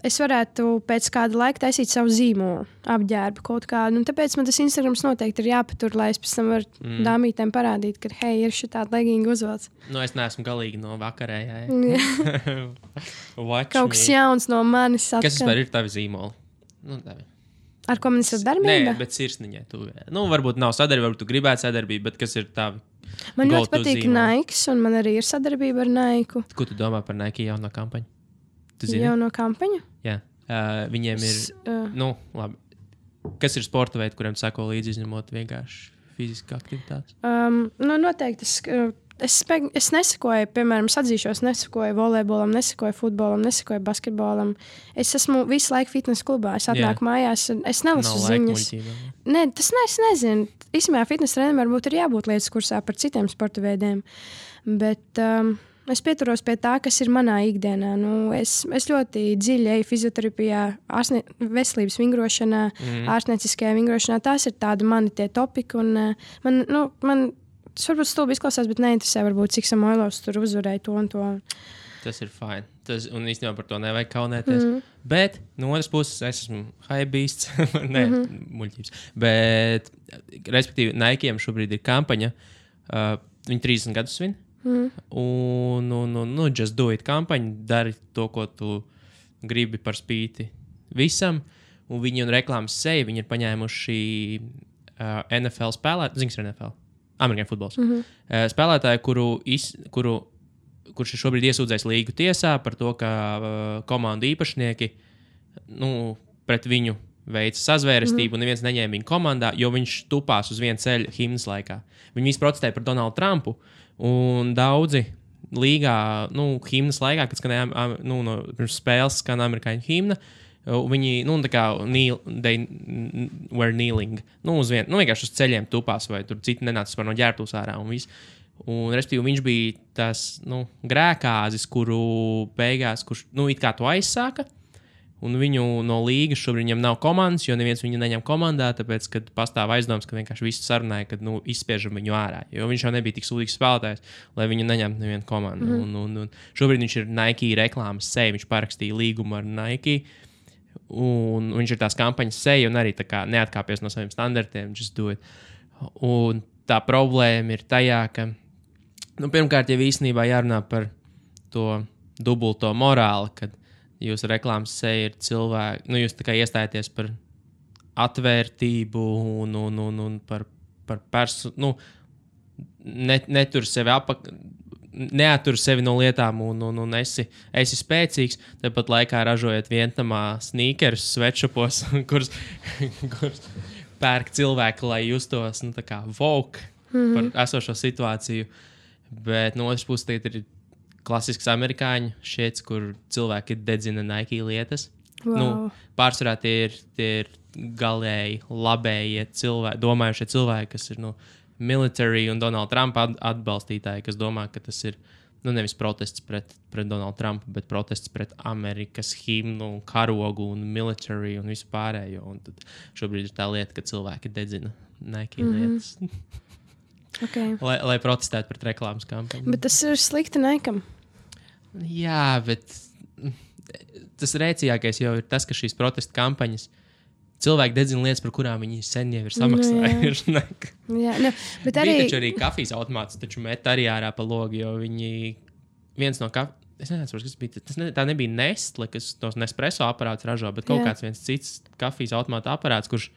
es varētu pēc kāda laika taisīt savu zīmolu, apģērbu kaut kādu. Tāpēc man tas Instagrams noteikti ir jāpatur, lai es pēc tam varu dāmītēm parādīt, ka, hei, ir šī tāda leginga uzvelc. Es neesmu galīgi no vakarējā. Kaut kas jauns no manis atkal. Kas vispār ir tavi zīmoli? Ar ko man ir sadarbība? Nē, bet sirsniņai tu. Varbūt nav sadarbība, varbūt tu gribētu sadarbību, bet kas ir tavi? Man ļoti patīk Nike, un man arī ir sadarbība ar Nike. Ko tu domā par Nike jauno kampaņu? Jauno kampaņu? Jā. Viņiem ir, labi. Kas ir sporta veidi, kuriem sako līdzi izņemot vienkārši fiziska aktivitātes? Noteikti. Es nesakoju, piemēram, atzīšos, nesakoju volejbolam, nesakoju futbolam, nesakoju basketbolam. Es esmu visu laiku fitnesa klubā. Es atnāku mājās, es nelasu ziņas. Nē, es nezinu. Īstenībā fitnesa trenerim varbūt ir jābūt lietas kursā par citiem sporta veidiem. Bet es pieturos pie tā, kas ir manā ikdienā. Es ļoti dziļi eju fizioterapijā, veselības vingrošanā, ārstnieciskajā vingrošanā. Tās ir tādi mani tie topiki. Man tas varbūt stulbi izklausās, bet neinteresē, varbūt, cik Samoilovs tur uzvarēja to un to. Tas ir fine. Un īstenībā par to nevajag kaunēties. Bet no otras puses es esmu hypebeasts. Nē, muļķības. Bet, respektīvi, Nike'iem šobrīd ir kampaņa. Viņi 30 gadus svin. Just do it kampaņa. Dari to, ko tu gribi par spīti visam. Un viņi un reklāmas seja, viņi ir paņēmuši NFL spēlētāju. Zini, kas ir NFL? Amerikāņu futbols. Spēlētāju, kurš ir šobrīd iesūdzējis līgu tiesā par to, ka komandu īpašnieki pret viņu veica sazvērestību un neviens neņēma viņu komandā, jo viņš tupās uz viena ceļa himnas laikā. Viņi visi protestēja par Donaldu Trumpu un daudzi līgā, himnas laikā, kad skanēja pirms spēles skan amerikāņu himna, viņi, tā kā they were kneeling, vienkārši uz ceļiem tupās, vai tur citi nenāca no ģērbtuves ārā un viss. Un, respektīvi, viņš bija tas, grēkāzis, kuru beigās, kurš, it kā to aizsāka, un viņu no līgas šobrīd viņam nav komandas, jo neviens viņu neņem komandā, tāpēc, kad pastāv aizdoms, ka vienkārši visi sarunāja, kad, izspiežam viņu ārā, jo viņš jau nebija tik sūdīgs spēlētājs, lai viņu neņemtu nevienu komandu. Un šobrīd viņš ir Nike reklāmas seja, viņš parakstīja līgumu ar Nike, un viņš ir tās kampaņas seja un arī tā kā neatkāpies no saviem standartiem, just do it. Un tā problēma ir tajā, ka, pirmkārt, jau īstenībā jārunā par to dubulto morāli, kad jūsu reklāmas seja ir cilvēki, jūs tā kā iestājaties par atvērtību un par netur sevi neatur sevi no lietām un esi spēcīgs, tāpat laikā ražojot vientamā sneakerus sweatshopos, kurus pērk cilvēki, lai justos tā kā woke par esošo situāciju. Bet no otras puses tagad ir klasisks amerikāņu šiets, kur cilvēki dedzina Nike lietas. Wow. Pārsvarā tie ir galēji labējie cilvēki, domājušie cilvēki, kas ir military un Donalda Trumpa atbalstītāji, kas domā, ka tas ir nevis protests pret Donaldu Trumpu, bet protests pret Amerikas himnu, karogu un military un visu pārējo. Un tad šobrīd ir tā lieta, ka cilvēki dedzina Nike lietas. Okay. lai protestētu pret reklāmas kampaņu. Bet tas ir slikti Nike'am. Jā, bet tas rēcīgākais jau ir tas, ka šīs protesta kampaņas cilvēki dedzina lietas, par kurām viņi sen jau ir samaksājuši. Bet arī... Bija taču arī kafijas automāts, taču met arī ārā pa logu, jo viņi viens no es nezinu, kas bija. Tā nebija Nestle, kas tos Nespresso aparātus ražo, bet kaut kāds viens cits kafijas automāta aparāts, kurš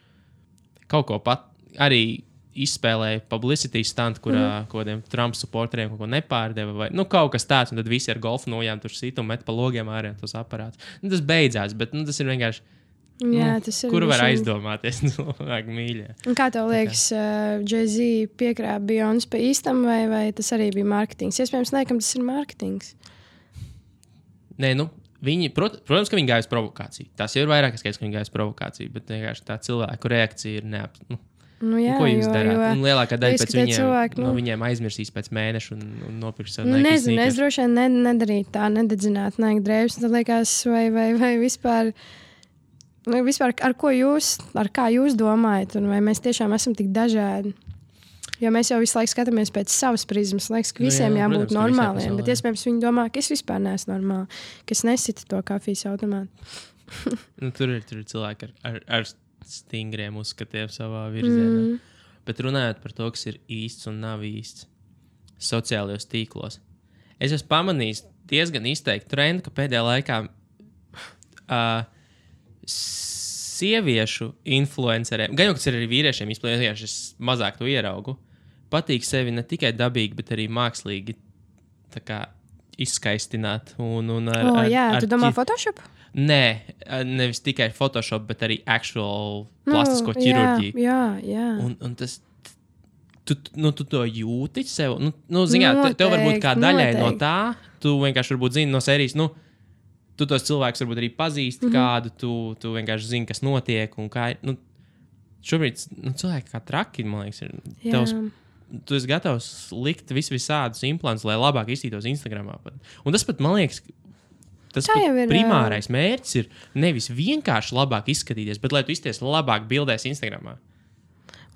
kaut ko pat arī izspēlēja publicity stand, kurā kodiem Trump supporteriem kaut ko nepārdeva vai kaut kas tāds, un tad visi ar golfu nojām tur sit un met pa logiem ārā tos aparātus. Tas beidzās, bet tas ir vienkārši tas ir kur var aizdomāties cilvēki mīļie. Un kā tev liekas, Jay-Z piekrāpa Beyoncé pa īstam vai tas arī bija mārketings? Iespējams, nekam tas ir mārketings. Nē, protams, ka viņi gāja uz provokāciju. Tas jau ir vairāk skaidrs, ka viņi gāja uz provokāciju, bet vienkārši tā cilvēku reakcija ir ko jūs darāt? Un lielākā daļa pēc viņiem aizmirsīs pēc mēneša un nopirks savu Nike nezinu, sneakers. Es droši vien nedarītu tā, nededzināt Nike drēbes. Tad liekas, vai vispār, ar kā jūs domājat, un vai mēs tiešām esam tik dažādi? Jo mēs jau visu laiku skatāmies pēc savas prizmas. Liekas, ka visiem jābūt normāliem, bet iespējams viņi domā, ka es vispār neesmu normāli, ka es nesitu to kafijas automātu. Tur ir cilvēki ar stingriem uzskatiem savā virzienā. Bet runājot par to, kas ir īsts un nav īsts sociālajos tīklos, es esmu pamanījis diezgan izteikti trendu, ka pēdējā laikā sieviešu influenceriem, gan jau kas ir arī vīriešiem, izplētījuši, es mazāk to ieraugu, patīk sevi ne tikai dabīgi, bet arī mākslīgi izskaistināt. Tu domā Photoshop? Nē, nevis tikai Photoshop, bet arī actual plastisko ķirurģiju. Jā. Un tas, tu to jūti sev. Tev varbūt kā daļai no tā, tu vienkārši varbūt zini no sērijas, tu tos cilvēkus varbūt arī pazīsti kādu, tu vienkārši zini, kas notiek un kā ir. Šobrīd cilvēki kā traki, man liekas, ir. Tu esi gatavs likt visādus implantus, lai labāk izstītos Instagramā. Un tas pat, man liekas, tas primārais mērķis ir nevis vienkārši labāk izskatīties, bet lai tu izties labāk bildēs Instagramā.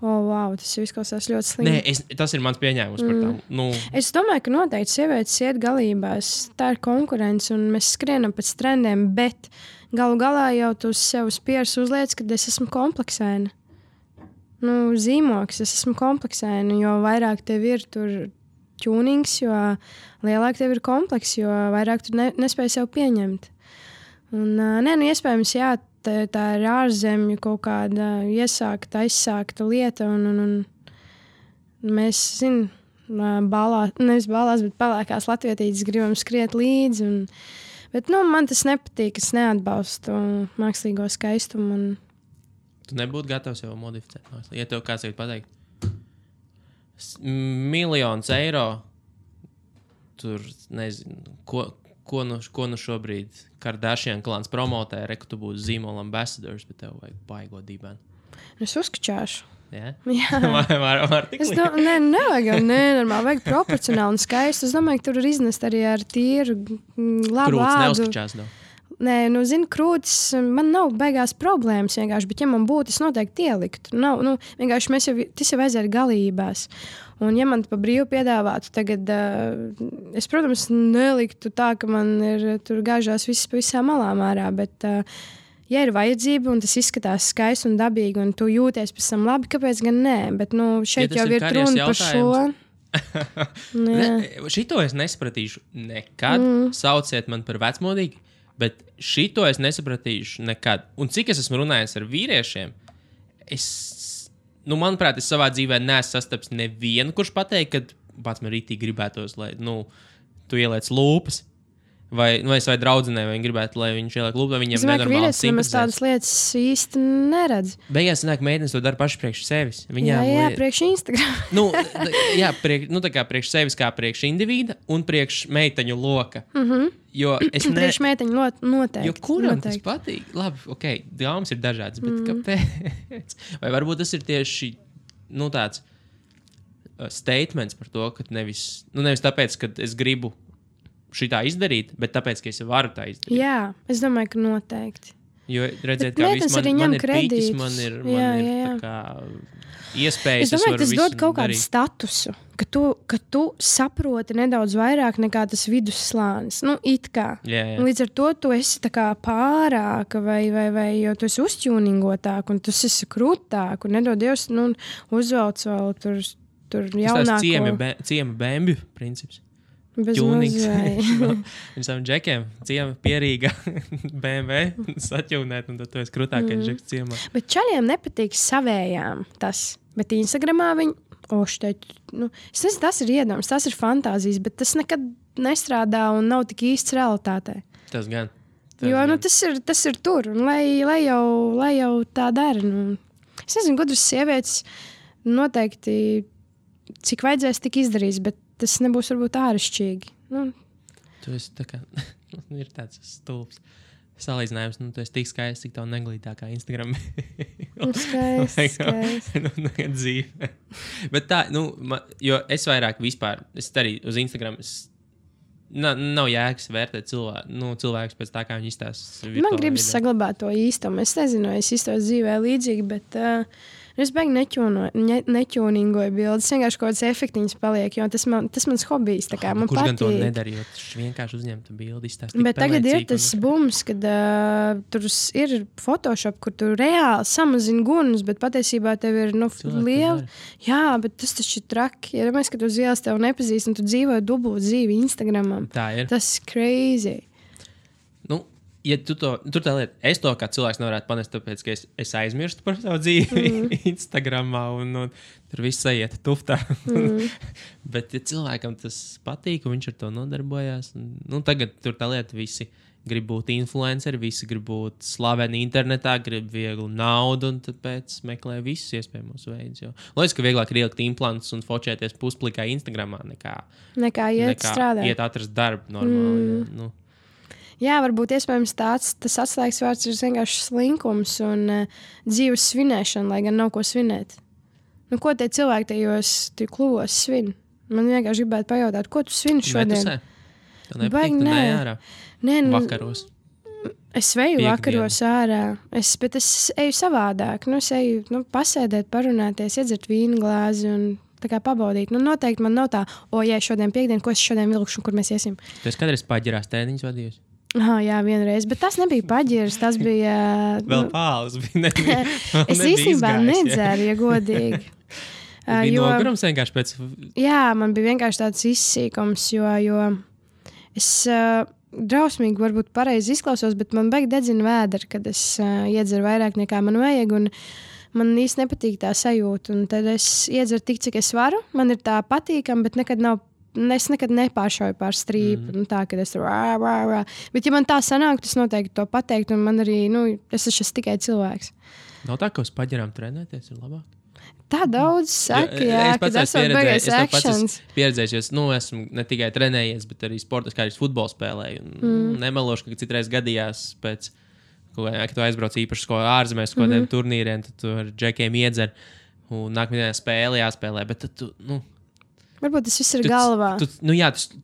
Wow, tas izklausās ļoti slikti. Nē, tas ir mans pieņēmums par tām. Es domāju, ka noteikti sievietes iet galībās. Tā ir konkurence un mēs skrienam pēc trendiem, bet galu galā jau tu sev spieris uzliec, ka es esmu kompleksēna. Zīmoks, es esmu kompleksēna, jo vairāk tev ir tur tunings, jo lielāk tev ir kompleks, jo vairāk tu nespēj sev pieņemt. Un, iespējams, jā, tā ir ārzemju kaut kāda aizsākta lieta, un mēs, nevis balās, bet pelēkās latvietītes gribam skriet līdzi, bet, man tas nepatīk, es neatbalstu mākslīgo skaistumu. Tu nebūtu gatavs jau modificēt. Ja tev kāds ir pateikt, 1 miljons eiro, tur, nezinu, ko nu šobrīd Kardashian klāns promotē, ka tu būsi zīmola ambassadors, bet tev vajag baigot dībēnu. Es uzskačāšu. Yeah? Jā. Var tik likt? Nevajag jau nenormāli, vajag proporcionāli un skaisti. Es domāju, ka tur var iznest arī ar tīru labu Krūts ādu. neuzskačās nav. Nē, krūtis, man nav beigās problēmas vienkārši, bet ja man būtu, es noteikti ieliktu. Vienkārši tas jau aiziet galībās. Un ja man pa brīvu piedāvātu tagad, es, protams, neliktu tā, ka man ir tur gāžās viss pa visām malām ārā, bet ja ir vajadzība un tas izskatās skaisti un dabīgi un tu jūties pēc tam labi, kāpēc gan nē? Bet šeit jau ir runa par šo. Šito es nesapratīšu nekad. Sauciet man par vecmodīgu. Bet šito es nesapratīšu nekad. Un cik es esmu runājis ar vīriešiem, manuprāt, es savā dzīvē neesmu sastaps nevienu, kurš pateikt, ka pats man rītīgi gribētos, lai tu ieliec lūpas. Vai draudzenei, vai viņi gribētu, lai viņš ieliek lūpu, vai viņiem nenormāli simpatizē. Es domāju, ka vīrietis tādas lietas īsti neredz. Beigās sanāk, meitenes to dara paši priekš sevis. Jā, priekš Instagram. Tā kā priekš sevis, kā priekš individa un priekš meiteņu loka. Jo es priekš meiteņu noteikti. Jo kuram tas patīk? Labi, dāmas ir dažādas, bet kāpēc? Vai varbūt tas ir tieši, tāds statements par to, ka nevis tāpēc, ka es gribu šitā izdarīt, bet tāpēc, ka es varu tā izdarīt. Jā, es domāju, ka noteikti. Jo redzēt, kā viss man ir piķis, man ir tā kā iespējas. Es domāju, tas dod kaut kādu statusu, ka tu saproti nedaudz vairāk nekā tas vidusslānis. Nu, it kā. Līdz ar to tu esi tā kā pārāka vai jo tu esi uzķūningotāk un tu esi krūtāk un nedod Dievs, nu, uzvelc vēl tur jaunāko. Tas ciema bēmbju princips. Bez mazai. Visam džekiem ciema pierīga BMW saķūnēt, un tad tu esi krūtākais džeks ciemā. Bet čaļiem nepatīk savējām tas. Bet Instagramā viņi, es nezinu, tas ir iedoms, tas ir fantāzijas, bet tas nekad nestrādā un nav tik īsts realitātē. Tas gan. Tas ir tur, un lai jau tā dara. Nu. Es nezinu, gudras sievietes noteikti, cik vajadzēs, tik izdarīs, bet tas nebūs varbūt āršķirīgi. Nu. Tu esi tā kā, ir tāds stulbs salīdzinājums, tu esi tik skaists, cik tev neglītākā Instagram. Skaists. Dzīve. Bet tā, jo es vairāk vispār, es arī uz Instagram, nav jēgas vērtēt cilvēkus pēc tā, kā viņi izstāsta. Man gribas saglabāt to īstumu. Es nezinu, es izstāstu dzīvē līdzīgi, bet es beigi neķūningoju bildes. Vienkārši kaut kāds efektiņas paliek, jo tas mans hobijs. Tā kā man kurš patīk. Gan to nedarīja, jo vienkārši uzņemtu bildi, izstāst. Bet tagad ir tas bums, kad tur ir Photoshop, kur tu reāli samazini gunus, bet patiesībā tev ir liela. Jā, bet tas taču ir traki. Ja mēs, ka tu uz ielas tev nepazīst un tu dzīvoji dubult dzīvi Instagramam. Tā ir. Tas ir crazy. Ja tur tā lieta, es to kā cilvēks nevarētu panest, tāpēc, ka es aizmirstu par savu dzīvi Instagramā un tur viss aiziet tuftā. Bet, ja cilvēkam tas patīk, un viņš ar to nodarbojās, tagad tur tā lieta visi grib būt influenceri, visi grib būt slaveni internetā, grib vieglu naudu, un tāpēc meklē visus iespējamos veidus. Liekas, ka vieglāk ir ielikt implantus un fočēties pusplikā Instagramā nekā strādāt. Iet atrast darbu normāli. Jā, varbūt iespējams tas atslēgas vārds ir vienkārši slinkums un dzīves svinēšana, lai gan nav ko svinēt. Ko tie cilvēki tajos klūvos svin? Man vienkārši gribētu pajautāt, ko tu svini šodien? Tev nepatīk, tu neej ārā? Vakaros. Es veju vakaros ārā, bet es eju savādāk. Es eju pasēdēt, parunāties, iedzert vīnu glāzi un tā kā pabaudīt. Noteikti man nav tā, šodien piekdien, ko es šodien vilkšu, kur mēs iesim. Tu esi kādreiz paģirās tēniņus vadījusi? Jā, vienreiz, bet tas nebija paģirs, tas bija... Vēl pāles bija. Es īstenībā nedzeru, ja godīgi. Bija nogurums vienkārši pēc... Jā, man bija vienkārši tāds izsīkums, jo es drausmīgi varbūt pareizi izklausos, bet man beig dedzina vēderi, kad es iedzeru vairāk nekā man vajag, un man īsti nepatīk tā sajūta, un tad es iedzeru tik, cik es varu, man ir tā patīkam, bet es nekad nepāršauju pār strīpu, tā, kad es tur Bet, ja man tā sanāk, tas noteikti to pateikt, un man arī, es esmu tikai cilvēks. Nav tā, ka uz paģirām trenēties ir labāk? Tā daudz saka, kad esmu beigais actions. Es pieredzējis, jo esmu ne tikai trenējies, bet arī sportas, kā arī futbolu spēlēju. Nemelošu, ka citreiz gadījās pēc, kad tu aizbrauc īpaši ārzemēs, kādiem turnīriem, tad tu ar džekiem iedzer, un nākamajā spēlē jāspēlē, bet tad tu, varbūt tas viss ir galvā.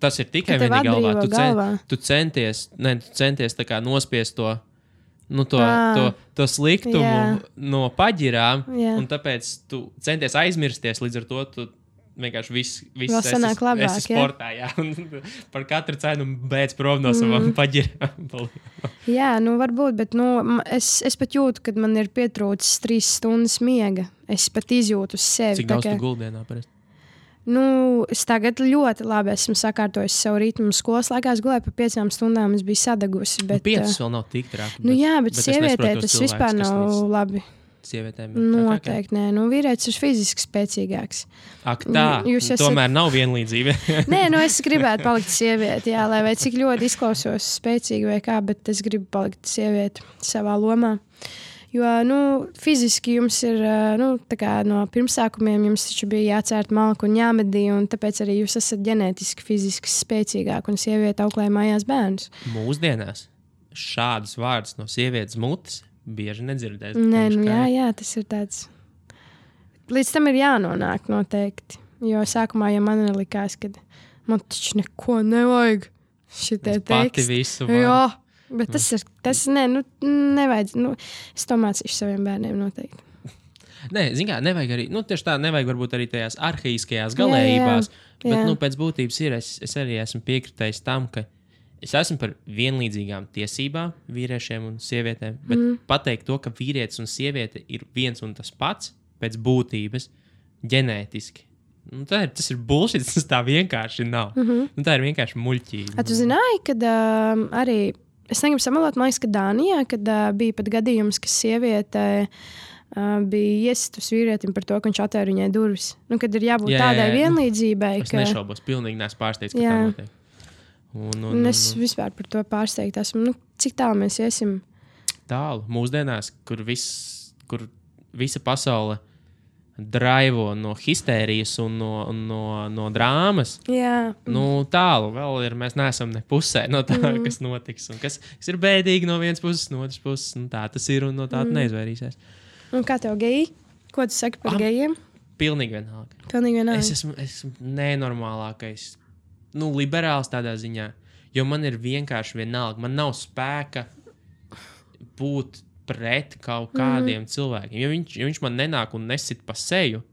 Tas ir tikai vienīgi galvā. Tu centies tā kā nospiest to sliktumu no paģirām, un tāpēc tu centies aizmirsties, līdz ar to tu vienkārši viss esi sportā, par katru cenu beidz prom no savām paģirām. Jā, varbūt, bet es pat jūtu, kad man ir pietrūcis 3 stundas miega. Es pat izjūtu uz sevi. Cik daudz tu guldienā parasti? Es tagad ļoti labi esmu sakārtojis savu ritmu. Skolas laikā es gulēju pa 5 stundām, es biju sadagusi. 5 vēl nav tik traki. Bet sievietē tas vispār nav labi. Sievietēm ir noteikti nē. Vīrietis ir fiziski spēcīgāks. Ak tā, tomēr nav vienlīdzība. Nē, es gribētu palikt sievieti, lai vai cik ļoti izklausos spēcīgi vai kā, bet es gribu palikt sievieti savā lomā. Jo, fiziski jums ir, tā kā no pirmsākumiem jums taču bija jācērt malku un jāmedī, un tāpēc arī jūs esat ģenētiski, fiziski spēcīgāk, un sieviete auklē mājās bērnus. Mūsdienās šādus vārdus no sievietes mutes bieži nedzirdēt. Nē, jā, tas ir tāds. Līdz tam ir jānonāk noteikti, jo sākumā jau man likās, ka man taču neko nevajag šitie teksti. Pati visu var. Jā. Bet nevajag. Es to mācīšu saviem bērniem noteikti. Nē, zin kā, nevajag arī, tieši tā, nevajag varbūt arī tajās arhaiskajās galējībās, bet, pēc būtības es arī esmu piekritējis tam, ka es esmu par vienlīdzīgām tiesībām vīriešiem un sievietēm, bet pateikt to, ka vīrietis un sieviete ir viens un tas pats pēc būtības ģenētiski. Tas ir bullshit, tas tā vienkārši nav. Tā ir vienkārši muļķība. Tu zināji, kad arī, es negribu samalot, man liekas, ka Dānijā, kad bija pat gadījums, ka sieviete bija iesistus vīrietim par to, ka viņš atvēra viņai durvis. Kad ir jābūt tādai vienlīdzībai. Es nešaubos, pilnīgi neesmu pārsteigts, ka tā notiek. Es vispār par to pārsteigta esmu. Cik tālu mēs iesim? Tālu. Mūsdienās, kur visa pasaule draivo no histērijas un no drāmas. Tālu vēl ir. Mēs neesam ne pusē no tā, kas notiks. Un kas ir bēdīgi no vienas puses, no otras puses. Tā tas ir un no tā neizvairīsies. Un kā tev geji? Ko tu saki par gejiem? Pilnīgi vienalga. Es esmu nenormālākais. Liberāls tādā ziņā, jo man ir vienkārši vienalga. Man nav spēka būt pret kaut kādiem cilvēkiem. Ja viņš man nenāk un nesit pa seju,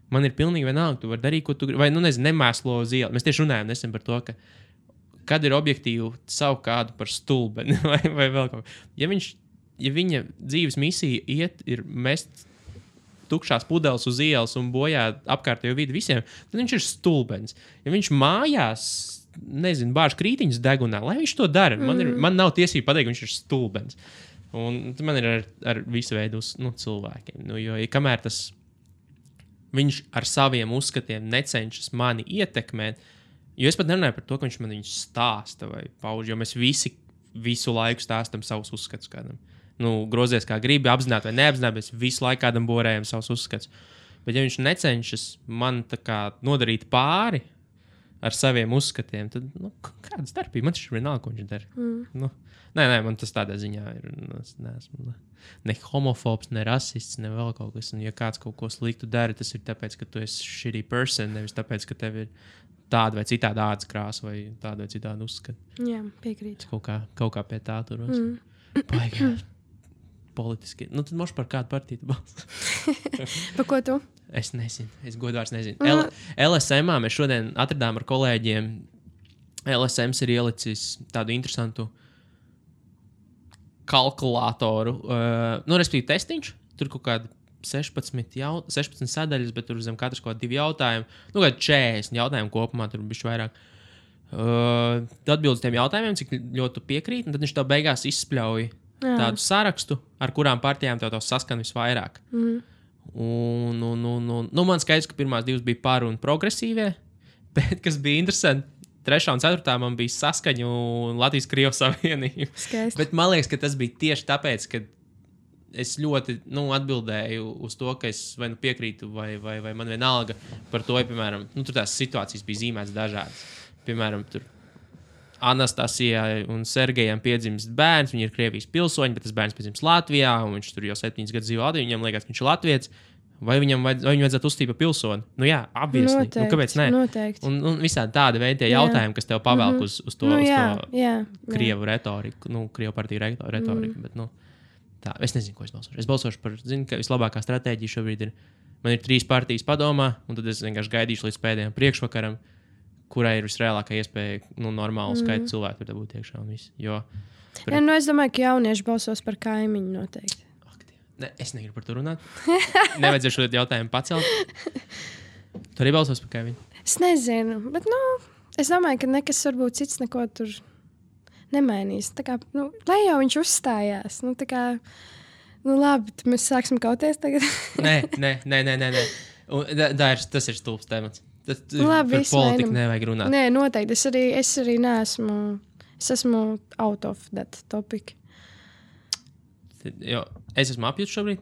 man ir pilnīgi vienalga, tu vari darīt, ko tu gribi. Vai, nemēslo uz ielas. Mēs tieši runājam nesen par to, ka kad ir objektīvi saukt kādu par stulbeni vai vēl kaut ko. Ja viņa dzīves misija ir mest tukšās pudeles uz ielas un bojā apkārtējo vidi visiem, tad viņš ir stulbens. Ja viņš mājās, bāž krītiņus degunā, lai viņš to dara. Man nav tiesība pateikt, ka viņš ir stulbens. Un man ir ar visu veidu cilvēkiem. Jo kamēr viņš ar saviem uzskatiem necenšas mani ietekmēt, jo es pat nerunāju par to, ka viņš man viņus stāsta vai pauž, jo mēs visu laiku stāstam savus uzskatus kādam. Grozies kā gribi, apzināti vai neapzināti, mēs visu laiku kādam borējam savus uzskatus. Bet ja viņš necenšas man nodarīt pāri ar saviem uzskatiem, tad kāda starpība? Man taču ir vienalga, ko viņš dara. Nē, man tas tādā ziņā ir. Es neesmu ne homofobs, ne rasists, ne vēl kaut kas. Un ja kāds kaut ko sliktu dara, tas ir tāpēc, ka tu esi shitty person, nevis tāpēc, ka tev ir tāda vai citāda ādas krāsa vai tāda vai citāda uzskata. Jā, piekrītu. Kaut kā pie tā turos. Baigās. Politiski. Tad moš par kādu partiju tu balso. Par ko tu? Es nezinu. Es godvārds nezinu. LSM-ā mēs šodien atradām ar kolēģiem. LSMs ir ielicis tādu interesantu kalkulātoru. Respektīvi testiņš. Tur kaut kādi 16 sadaļas, bet tur zem katras kaut kādi 2 jautājumi. Kādi 40 jautājumi kopumā, tur bišķi vairāk. Atbildi uz tiem jautājumiem, cik ļoti piekrīt, un tad viņš tev beigās izspļauj tādu sarakstu, ar kurām partijām tev saskan visvairāk. Man skaidrs, ka pirmās 2 bija par un progresīvie, bet, kas bija interesanti, 3. un 4. man bija saskaņu un Latvijas-Krievijas savienība. Skaisti. Bet man liekas, ka tas bija tieši tāpēc, ka es ļoti atbildēju uz to, ka es vai piekrītu, vai man vienalga par to, ja, piemēram, tur tās situācijas bija zīmētas dažādas. Piemēram, tur Anastasijai un Sergejam piedzimst bērns, viņi ir Krievijas pilsoņi, bet tas bērns piedzimst Latvijā, un viņš tur jau 7 gadus dzīvo Latvijā, viņam liekas, ka viņš ir latviets, vai viņam vajadzētu uzstīt par pilsoni? Jā, obviously. Noteikti, kāpēc ne? Noteikti. Un visādi tādi veidi tie jautājumi, kas tev pavelk uz to Krievu retoriku, Krievu partiju retoriku, bet, tā, es nezinu, ko es balsošu. Es balsošu par, ka vislabākā stratēģija šobrīd ir, man ir 3 partijas padomā, un tad es vienkārši gaidīšu līdz pēdējiem priekšvakaram, kurai ir visreālākā iespēja normālu skaitu cilvēku tur dabūt iekšā un viss. Es domāju, ka jaunieši balsos par kaimiņu noteikti. Ne, es negribu par to runāt. Nevajadzēšu šo jautājumu pacelt. Tu arī balsos par kaimiņu? Es nezinu, bet es domāju, ka nekas varbūt cits neko tur nemainīs. Tā kā, lai jau viņš uzstājās. Labi, mēs sāksim kauties tagad. Nē. Tas ir stulbs temats. Labi, par politiku nevajag runāt. Nē, noteikti. Es arī neesmu. Es esmu out of that topic. Jo es esmu apjūts šobrīd.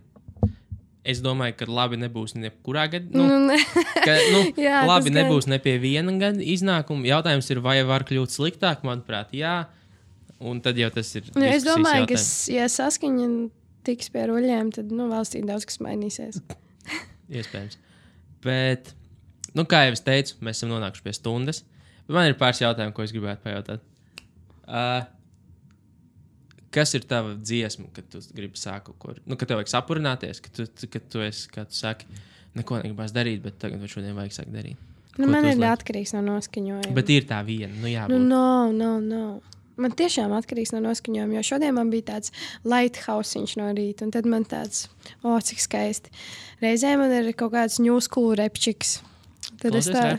Es domāju, ka labi nebūs nekurā gadā. Jā, labi nebūs ne pie viena gada iznākuma. Jautājums ir, vai var kļūt sliktāk? Manuprāt, jā. Un tad jau tas ir. Es domāju, ka ja saskaņa tiks pie ruļļiem, tad valstī daudz kas mainīsies. Iespējams. Bet, kā jau es teicu, mēs esam nonākuši pie stundas. Bet man ir pāris jautājumu, ko es gribētu pajautāt. Kas ir tava dziesma, kad tu gribi sākt kaut ko? Nu, kad tev vajag sapurināties, kad tu esi, kā tu saki, neko negribās darīt, bet tagad vai šodien vajag sākt darīt. Nu, man ir atkarīgs no noskaņojuma. Bet ir tā viena, nu jābūt. No. Man tiešām atkarīgs no noskaņojuma, jo šodien man bija tāds lighthousiņš no rīta, un tad man tāds, cik skaisti. Reizē man ir kaut kāds new school repčiks. Tad es tā...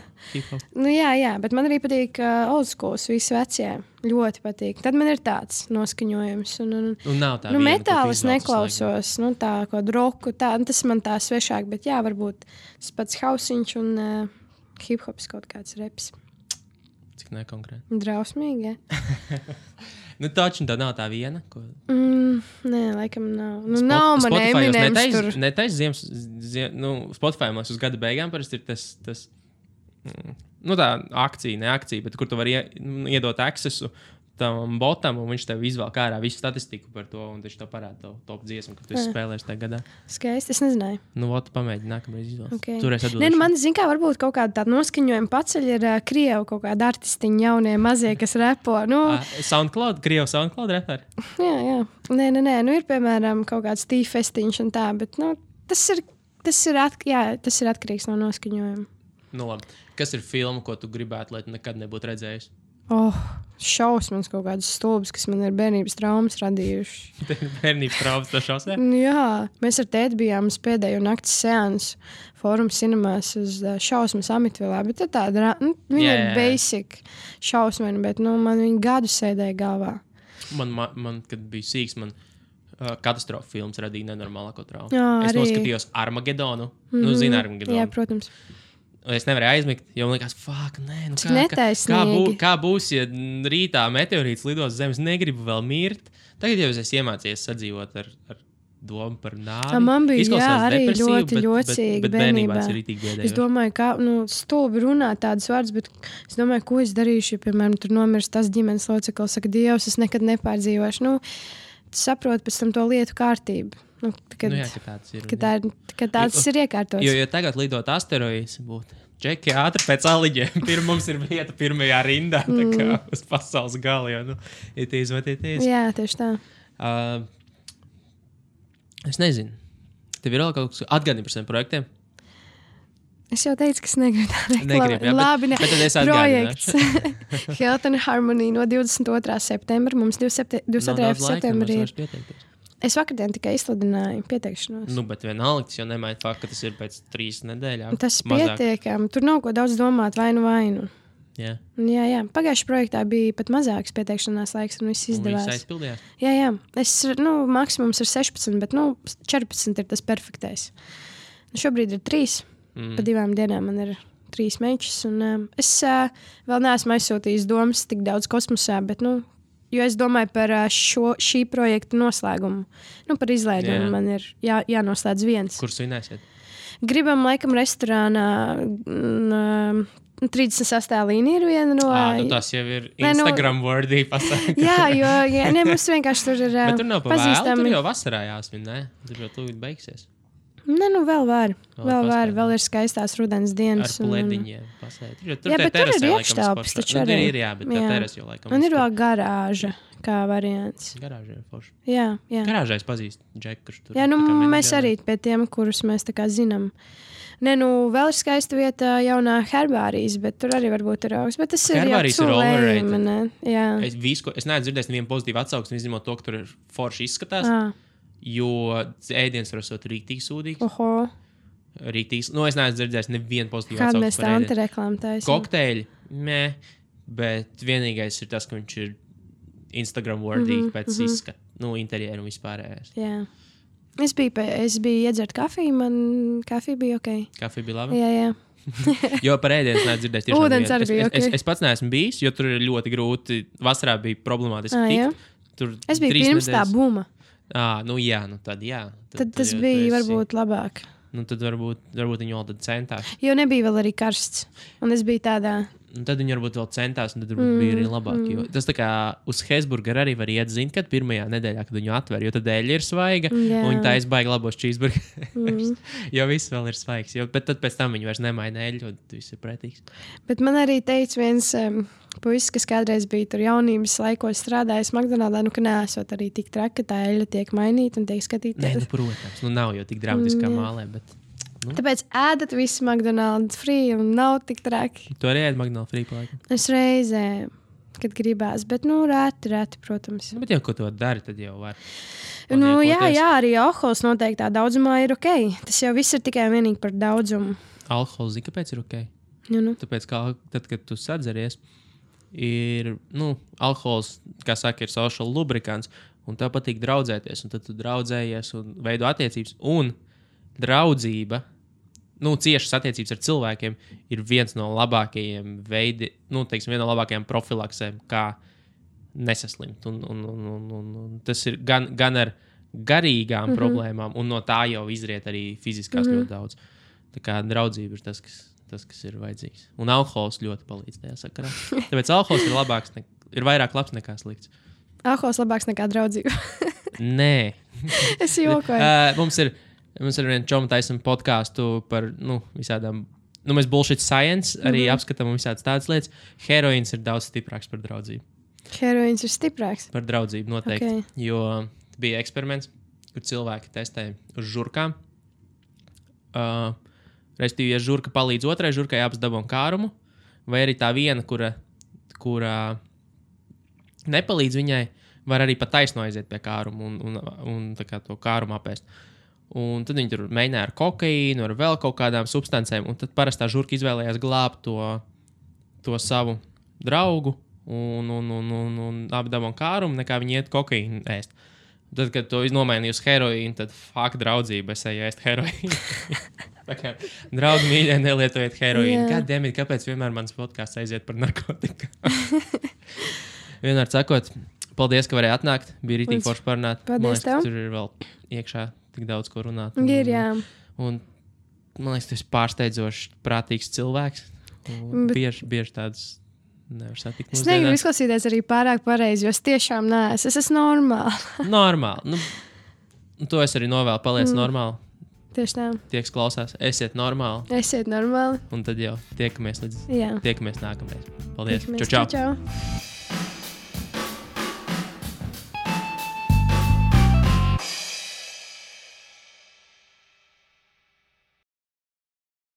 Nu jā, bet man arī patīk old schools, visi vecie. Ļoti patīk. Tad man ir tāds noskaņojums. Un nav tā viena, metālis neklausos, tā kaut roku, tā, tas man tā svešāk, bet jā, varbūt tas pats hausiņš un hip-hops kaut kāds reps. Cik nekonkrēti? Drausmīgi, ja? Nu, taču tā nav tā viena, ko... Nē, laikam nav. Nav man Eminems tur. Netais Spotify mums uz gada beigām parasti ir tas tā akcija, bet kur tu vari iedot accessu tam botam, un viņš tev izvēl ārā visu statistiku par to, un viņš tev parāda to top dziesmu, ka tu esi spēlējis tajā gadā. Skaisti, es nezināju. Nu, pamēģini nākamreiz izvēlēt. Okay. Turēs atbildēšu. Man, zin kā, varbūt kaut kāda tāda noskaņojuma paceļ ir Krievu kaut kāda artistiņa jaunie mazie, kas repo. Krievu SoundCloud reperi? Jā. Nē, ir, piemēram, kaut kāds tīfestiņš un tā, bet, tas ir atkarīgs no noskaņojuma. Nu, labi. Kas ir filma, ko tu gribētu, lai tu nekad nebūtu redzējis? Šausmas kaut kādas stulbas, kas man ir bērnības traumas radījuši. Bērnības traumas to šausmē? Jā, mēs ar tēti bijām uz pēdējo nakts seansu Forum Cinemās uz šausmas Amitvilā, bet tāda, viņa ir basic šausmena, bet, man viņa gadu sēdēja galvā. Man kad bija sīks, katastrofa filmas radīja nenormālāko traumu. Es noskatījos Armagedonu. Zini Armagedonu? Jā, protams. Es nevarēju aizmigt, jo man likās, kā būs, ja rītā meteorīts lidos zemes, negribu vēl mirt. Tagad jau es iemācījos sadzīvot ar domu par nāvi. Man bija arī ļoti ļocīgi bet bērnībā. Es domāju, kā stulbi runāt tādas vārdas, bet es domāju, ko es darīšu, ja, piemēram, tur nomirst tas ģimenes loceklis, saka, Dievs, es nekad nepārdzīvošu. Saprotu pēc tam to lietu kārtību. Kad tāds ir iekārtots. Jo tagad lidot asteroīds būtu Džeki ātri pēc aliģiem. Mums ir vieta pirmajā rindā, tā kā uz pasaules gala, jo, it is what it is. Jā, tieši tā. Es nezinu. Tev ir vēl kaut kas atgādini par saviem projektiem? Es jau teicu, ka es negribu tā reklamēt. Labi, bet tad es projekts Health and Harmony no 22. septembra. Mums 22. septembrī ir. Es vakardien tikai izsludināju pieteikšanos. Bet vienalga, tas jau nemaina faktu, ka tas ir pēc 3 nedēļām. Tas pietiekami. Tur nav ko daudz domāt, vainu. Jā. Jā. Pagājušajā projektā bija pat mazāks pieteikšanās laiks, un viss izdevās. Un viss aizpildījās? Jā. Maksimums ir 16, bet 14 ir tas perfektais. Šobrīd ir 3. Pa 2 dienām man ir 3 mečus. Es vēl neesmu aizsūtījis domas tik daudz kosmosā, bet jo es domāju par šī projekta noslēgumu. Par izlaidumu man ir jānoslēdz viens. Kur svinēsiet? Gribam laikam restorānā 38. līnija ir viena no... Tas jau ir Instagram-worthy pasaka. Jā, mums vienkārši tur ir bet tur nav pa vēlu, tur jau vasarā jāsvin, ne? Tur jau tūlīt beigsies. Vēl var. Vēl ir skaistās rudens dienas. Ar plediņiem pasēt. Jā, bet tur ir iekštelpas, taču arī. Ir, bet tā teres jau laikam. Un ir vēl garāža, kā variants. Garāža ir forši. Jā. Garāžā es pazīstu Džeku, kurš tur. Jā, mēs arī pie tiem, kurus mēs tā kā zinām. Vēl ir skaista vieta jaunā herbārijas, bet tur arī varbūt ir augsts. Bet tas ir jau overrated. Es neesmu dzirdējis nevienu pozitīvu atsauksmi, izņemot to, ka tur ir forši izskatās. Jo ēdiens var būt rīktīgi sūdīgs. Rīktīgs. Es neesmu dzirdējis nevienu pozitīvu atsauksmi. Kāda mēs tā antireklāmu taisam? Kokteļi, bet vienīgais ir tas, ka viņš ir Instagram-worthy pēc izskata, interjeru un vispārējais. Jā. Es biju iedzert kafiju, man kafija bija ok. Kafija bija labi? Jā. Jo par ēdienu neesmu dzirdējis. Ūdens arī bija ok. Es pats neesmu bijis, jo tur ir ļoti grūti. Vasarā bija problemātiski tikt. Es biju pirms tā buma. Tad jā. Tad tas bija varbūt labāk. Tad varbūt viņi vēl tad centās. Jo nebija vēl arī karsts. Un es biju tādā Un tad viņi varbūt vēl centās, un tad bija arī labāk. Jo tas tā kā uz Hesburgeru arī var iet, zin, kad pirmajā nedēļā, kad viņu atver, jo tad eļļa ir svaiga, un viņi taisa baigi labos cheeseburgerus. Jo viss vēl ir svaigs. Bet tad pēc tam viņi vairs nemaina eļļu, un viss ir pretīgs. Bet man arī teica viens puisis, kas kādreiz bija tur jaunības laikos strādājis McDonaldā, ka neesot arī tik traki, ka tā eļļa tiek mainīta un tiek skatīta. Nē, protams, nav jau tik dramatiskā mālē, bet... Tāpēc ēdat visu McDonald's free un nav tik traki. Tu arī ēd McDonald's free palaikam? Es reizē, kad gribās, bet reti, protams. Bet jau, ko to dari, tad jau var. Jā, arī alkohols noteiktā daudzumā ir ok. Tas jau viss ir tikai vienīgi par daudzumu. Alkohols, kāpēc ir ok? Tāpēc, tad, kad tu sadzeries, ir, alkohols, kā saka, ir social lubrikants, un tev patīk draudzēties, un tad tu draudzējies un veido attiecības, un draudzība, ciešas attiecības ar cilvēkiem ir viens no labākajiem viena no labākajām profilaksēm, kā nesaslimt. Un tas ir gan ar garīgām problēmām, un no tā jau izriet arī fiziskās ļoti daudz. Tā kā draudzība ir tas, kas ir vajadzīgs. Un alkohols ļoti palīdz tajā sakarā. Tāpēc alkohols ir labāks, ir vairāk labs nekā slikts. Alkohols labāks nekā draudzība? Nē. Es jokoju. Mums ir viena čoma taisam podcastu par visādām, mēs bullshit science arī apskatām visādas tādas lietas. Heroīns ir daudz stiprāks par draudzību. Heroīns ir stiprāks? Par draudzību noteikti. Okay. Jo bija eksperiments, kur cilvēki testēja uz žurkām. Respektīvi, ja žurka palīdz otrai žurkai, abas dabūna kārumu, vai arī tā viena, kura nepalīdz viņai, var arī pa taisno aiziet pie kārumu un tā kā to kārumu apēst. Un tad viņi tur mēģināja ar kokaīnu, ar vēl kaut kādām substancēm, un tad parastā žurka izvēlējās glābt to savu draugu un apdabon kārumu, nekā viņi iet kokaīnu ēst. Tad, kad to nomainīja uz heroīnu, tad draudzība, es eju ēst heroīnu. Draugi mīļie, nelietojiet heroīnu. Goddammit, kāpēc vienmēr mans podcasts aiziet par narkotiku? Vienmēr sakot, paldies, ka varēji atnākt. Bija rītīgi forši parunāt. Paldies tev. Tur ir vēl iekšā tik daudz, ko runāt. Ir, jā. Un man liekas, tu esi pārsteidzošs, prātīgs cilvēks. Bieži tāds nevar satikt mūsdienās. Es negribu izklausīties arī pārāk pareizi, jo es tiešām neesmu. Es esmu normāli. Normāli. To es arī novēlu. Paliec normāli. Tieši tā. Tie, kas klausās, esiet normāli. Esiet normāli. Un tad jau tiekamies nākamreiz. Paldies. Čau.